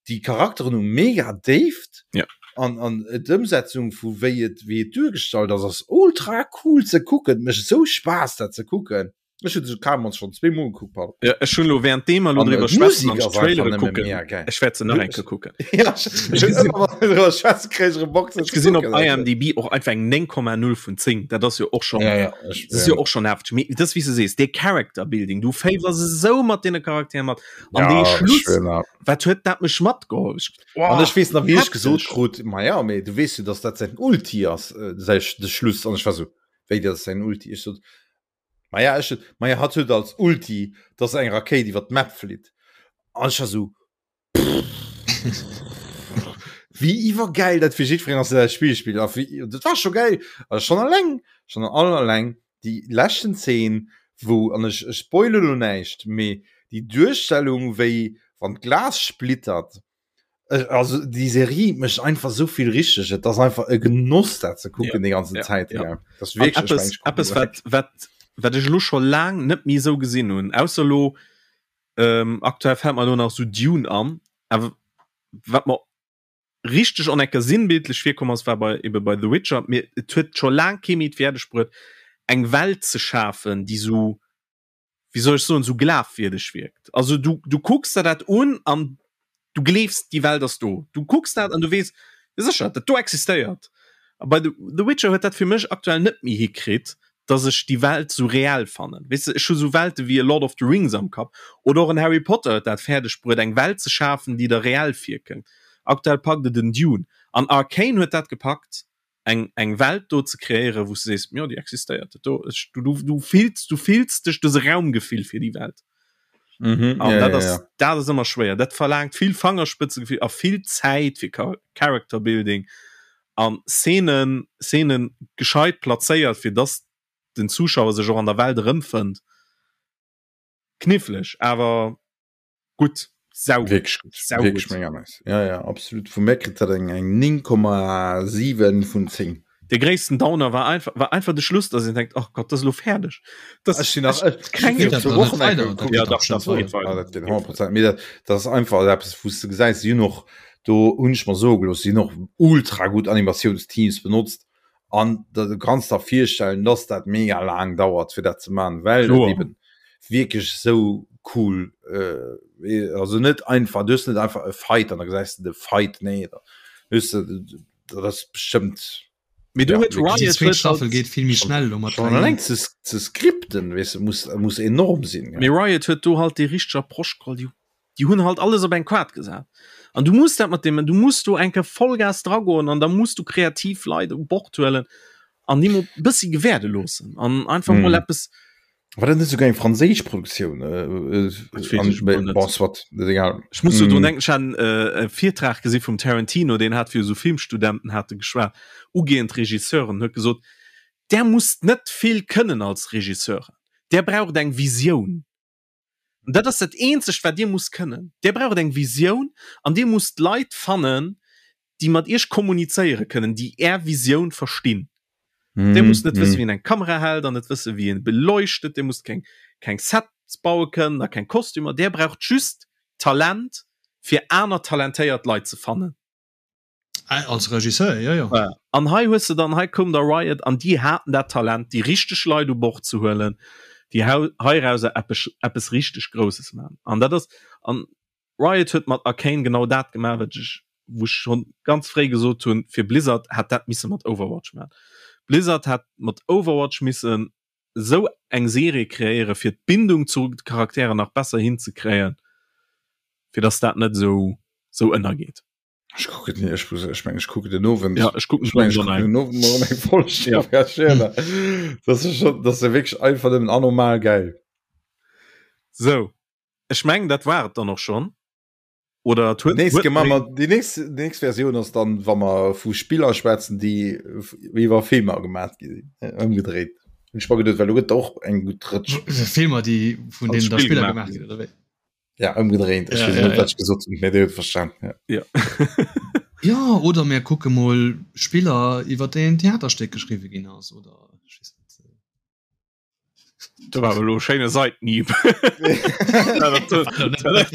die Charakteren hu mega Déift ja an an d'Ëmsetzung vu wéi et wéi et duergestallt ass ass ultra cool ze kucken mécht esou Spaass dat ze kucken. Ech hunn se kaum schon zweemol gekuckt, Paul. Ja, ech hunn lo während deem mer lo An, äh, driwwer schwätzen d'Musik an ass einfach d'Trailere nëmme kucken. mega geil. Ech wäert se nach eng Kéier kucken. Ja, ech Ech hunn gesinn ëmmer wann mir driwwer schwätzen, kréien ech erëm Bock se ech ze gesinn op kucken, also. IMDb och einfach eng 9,0 vun 10. Dat ass jo och schon Ja, ja, ech, dat ass jo ja. och schon hefteg. Mee dat ass wéi s du sees, dee Character Building, du féiwers esou mat deene Charakteren mat. An Ja, dee ech Schluss, schwören, ja. wat huet dat mech matgeholl? Ech, An oh, ech weess nach, wéi ech gesot hefteg. krut, ma ja, mee du weess jo, dass dat säin Ulti ass, äh, säi, de Schluss. An ech war sou, wéi, dat ass säin Ulti? Ech sot, Maja ech maja hatt huet als Ulti dass eng Rakéit iwwer d'Map flitt an ech war sou wéi iwwergäil dat fir jiddwereen ass deen dat Spill spillt a wéi dat war scho gäil a schonn alleng schonn all alleng déi leschten Zeen wou an ech ech spoile lo näischt mee déi Duerstellung wéi wann d'Glas splittert Also déi Serie mécht einfach sou vill richteg. Et ass einfach e Genoss dat ze kucken déi ganzen ja, Zäit. ja. Ja. Das An wierklech, ech eppes, mengen, ech kucken eppes direkt. wat, wat, wat ech elo scho laang net méi esou gesinn hunn, ausser elo, ähm, aktuell fält mer elo nach esou Dune an, awer wat mer richteg an enker sinnbildlech virkomm ass, war bei ebe bei The Witcher, mee et huet scho laang kee méi d'Fäerdeg bruet, eng Welt ze schafen, déi esou wéi soll ech soen, esou glafwierdeg wierkt. Also du, du kucks der dat un an du gleefs, déi Welt ass do. Du kucks dat an du weess, jo sécher, dat do existéiert. A bei The, The Witcher huet dat fir mech aktuell net méi hikritt, dass ech déi Welt esou reell fannen. Weess de, ech hu sou Welte wéi e Lord of the Rings am Kapp oder och en Harry Potter huet dat fäerdeg bruet, eng Welt ze schafen, déi der reell virkënnt. Aktuell packt et en Dune. An Arcane huet dat gepackt. eng eng Welt do ze kreéieren, wou s de sees, jo déi existéiert, dat do, ech, du, du, du fills, du fills dech, du hues e Raumgefill fir déi Welt. Mhm, An ja, dat ja, ass, ja. dat ass ëmmer schwéier. Dat verlaangt vill Fangerspëtzegefill a vill Zäit fir Character Building an Szenen, Szenen gescheit plazéiert, fir dass den Zuschauer sech och an der Welt erëmfënnt. Kniffleg, awer Gutt, saugutt, Wierklech gutt, saugutt. wierklech mega nice. Ja, ja, absolut. Vu mir kritt dat eng eng 9,7 vun 10. De gréissten Downer war einfach, war einfach de Schluss, dass een denkt, ach Gott, dat ass elo fäerdeg. Das, Ech sinn nach, ech, ech keng sinn Geet dat zwou dann net Wochen eng weider? Kéier Dat gekuckt. Ja, geet dach dach, bestimmt dach, dat geet weider. Ah, weider. dat geet Dat geet 100%. Mee dat, dat ass einfach eppes, wou s de gesäis, si hunn och, do hunn ech mer soe gelooss, si hunn och ultra gutt Animatiounsteams benotzt. An da du kanns der virstellen, dass dat mega laang dauert fir dat ze man, well et Kloer. eben wierklech sou cool äh, also net einfach, du hues net einfach e Fight an da gesäis de de Fight, nee da hues de, dat ass bestëmmt Mee do ja, huet wierklech Déi Riot zweet huet Staffel halt geet vill méi schnell elo mat schon 3 alleng ze ze skripten, weess de, muss muss enorm sinn, Mee ja. Riot huet do halt déi richteg Approche geholl, déi Déi hunn halt alles op eng Kaart gesat. An du muss dat mat deem, du muss do eng Kéier Vollgas dragoen an da muss du kreativ Leit u Bord huelen an déi mol e bëssi gewäerde loossen an einfach mol Mm. eppes. War dat net souguer eng franséisch Produktioun? Äh, äh, Dat weess an, ech mol net. bon, soit, dat ass egal. Ech muss jo drun Mm. denken, ech hat en äh, e Virtrag gesi vum Tarantino, deen hat fir esou Filmstudenten hat e geschwat, ugehend Regisseuren, huet gesot, Der musst net vill kënnen als Regisseuren, der braucht eng Visioun. An dat ass dat eenzegt wat dir musst kënnen. Dir braucht eng Visioun an dir musst Leit fannen, déi mat iech kommunizéiere kënnen, déi är Visioun verstinn. Dir musst net wëssen, wéi een eng Kamera hält an net wëssen, wéi een beleuchtet. Dir musst keng keng Sets baue kënnen a keng Kostümer. Dir braucht just Talent fir aner talentéiert Leit ze fannen. Ah, als Regisseur, ja, ja. Ja. An hei hues de dann, hei koum da Riot an déi haten dat Talent, déi richteg Leit u Bord ze huelen, déi heirauser eppes, eppes richteg Grousses maachen. An dat ass, an Riot huet mat Arcane genau dat gemaach, wat ech, wou ech schonn ganz fréi gesot hunn, fir Blizzard hätt dat misse mat Overwatch maachen. Blizzard hätt mat Overwatch missen esou eng Serie kreéieren, fir d'Bindung zu de Charakteren nach besser hinzekréien, fir dass dat net esou, esou ënnergeet. Ech kucken den, ech, ech meng, ech kucken den Owend. Ja, ech kucken ech meng, ech kucken den Owend mol eng Folg. Ja. Ja. Das ist schon, das ist wirklich einfach nëmmen anormal geil. So, ech mengen, dat war et dann och schon. Oder huet, Nächst huet gemacht mer, déi nächst, déi nächst Versioun ass dann, wa mer vu Spiller schwätzen, déi iwwer Filmer gemaat gi sinn. Ëmgedréit. Hunn ech mer geduet, well do gëtt och eng gutt Rëtsch. Filmer, déi vun Als deenen da Spill Spiller gemaach gemaach ginn, oder wéi? Ja, ëmgedréint. Ech Ja, weess ja, net, ja. wat ech gesot hunn, mee Dir hutt verstan. Ja. Ja. Ja, oder mir kucke mol Spiller, iwwer déi en Theaterstéck geschriwwe ginn ass, oder ech weess net. Do war awer elo e schéine Seitenhieb. Dat war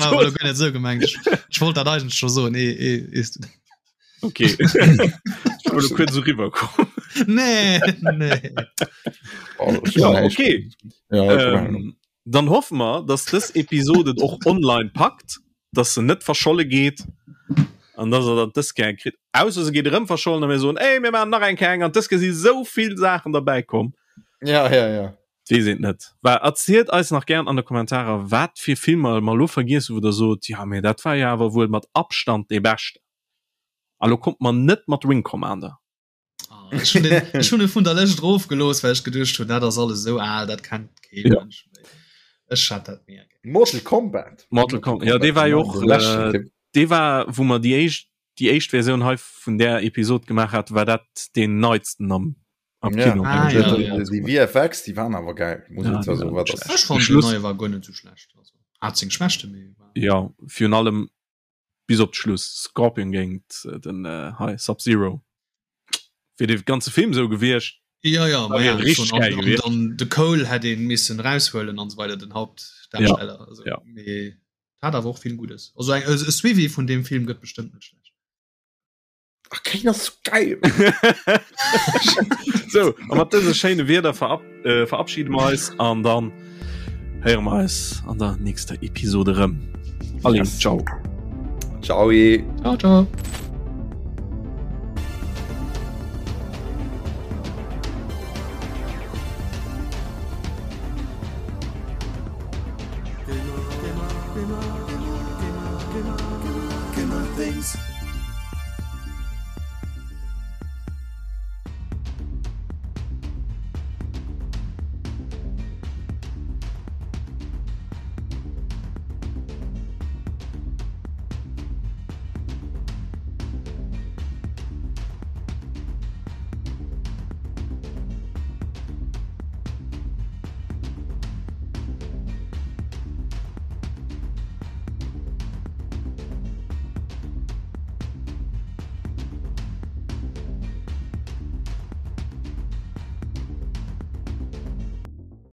awer elo guer net esou gemengt. Ech, ech wollt dat eigentlech scho soen, ee, ee, ees du. Okay. Ech wollt elo kuerz esou riwwerkommen. Nee, nee. Oh, ja, okay. Ja, ähm, dann hoffe mer, dass dës Episode et och online packt, dass se net verscholle geet an dass er dat dës Kéier kritt. Ausser se geet erëm verschollen a mir soen, ey, mir maachen nach eng Kéier eng an dës Kéier si sou vill Saachen derbäi komm. Ja, ja, ja. Weess een net. Well erzielt eis nach gären an de Kommentarer, wat fir Filmer mer elo vergiess hu wou der sot, jo mee dat war jo awer wuel mat Abstand dee beschten. A lo kommt mer net mat Wing Commander. Ah, ech hunn den, ech hunn e vun der Lëscht erofgelooss, well ech geduecht hunn, dat ass alles esou al, dat kennt kee Ja. Mënsch méi. Ech hat dat mega gär. Mortal Kombat. Mortal Kombat, ja, dee war jo och, Den leschten, äh, dee war, wou mer déi éischt, déi éischt Versioun hei vun där Episod gemaach hat, war dat deen neitsten am, am Ja. Kino. Ah, ja, ja. Die VFX, die waren awer geil. Muss Ja, ich zwar die so, waren wat nicht das Ech fand den Schluss- neie war guer net sou schlecht. Also, hat seng Schwächte, mee war. Ja, virun allem bis op d'Schluss Scorpion géint äh, den äh, hei Sub-Zero. Wier de ganze Film sou gewiescht. Ja, ja, ma wär ja, richtig schon. geil An, an gewiescht. dann de Cole hätt een missen raushuelen an so weiter, den Hauptdarsteller. Ja, also, ja. Mee hat awer och vill Gutes. Also eng, e Suivi vun dem Film gëtt bestëmmt net schlecht. Ach, Kane ass so geil. So, a mat dëse schéine Wierder verab äh, verabschiede mer eis an dann héiere mer eis an der nächster Episode rëm. Allez, Yes. ciao. Ciao. Ciao, ciao. Gamer, Gamer, Gamer, Gamer, Gamer, Gamer, Gamer Things.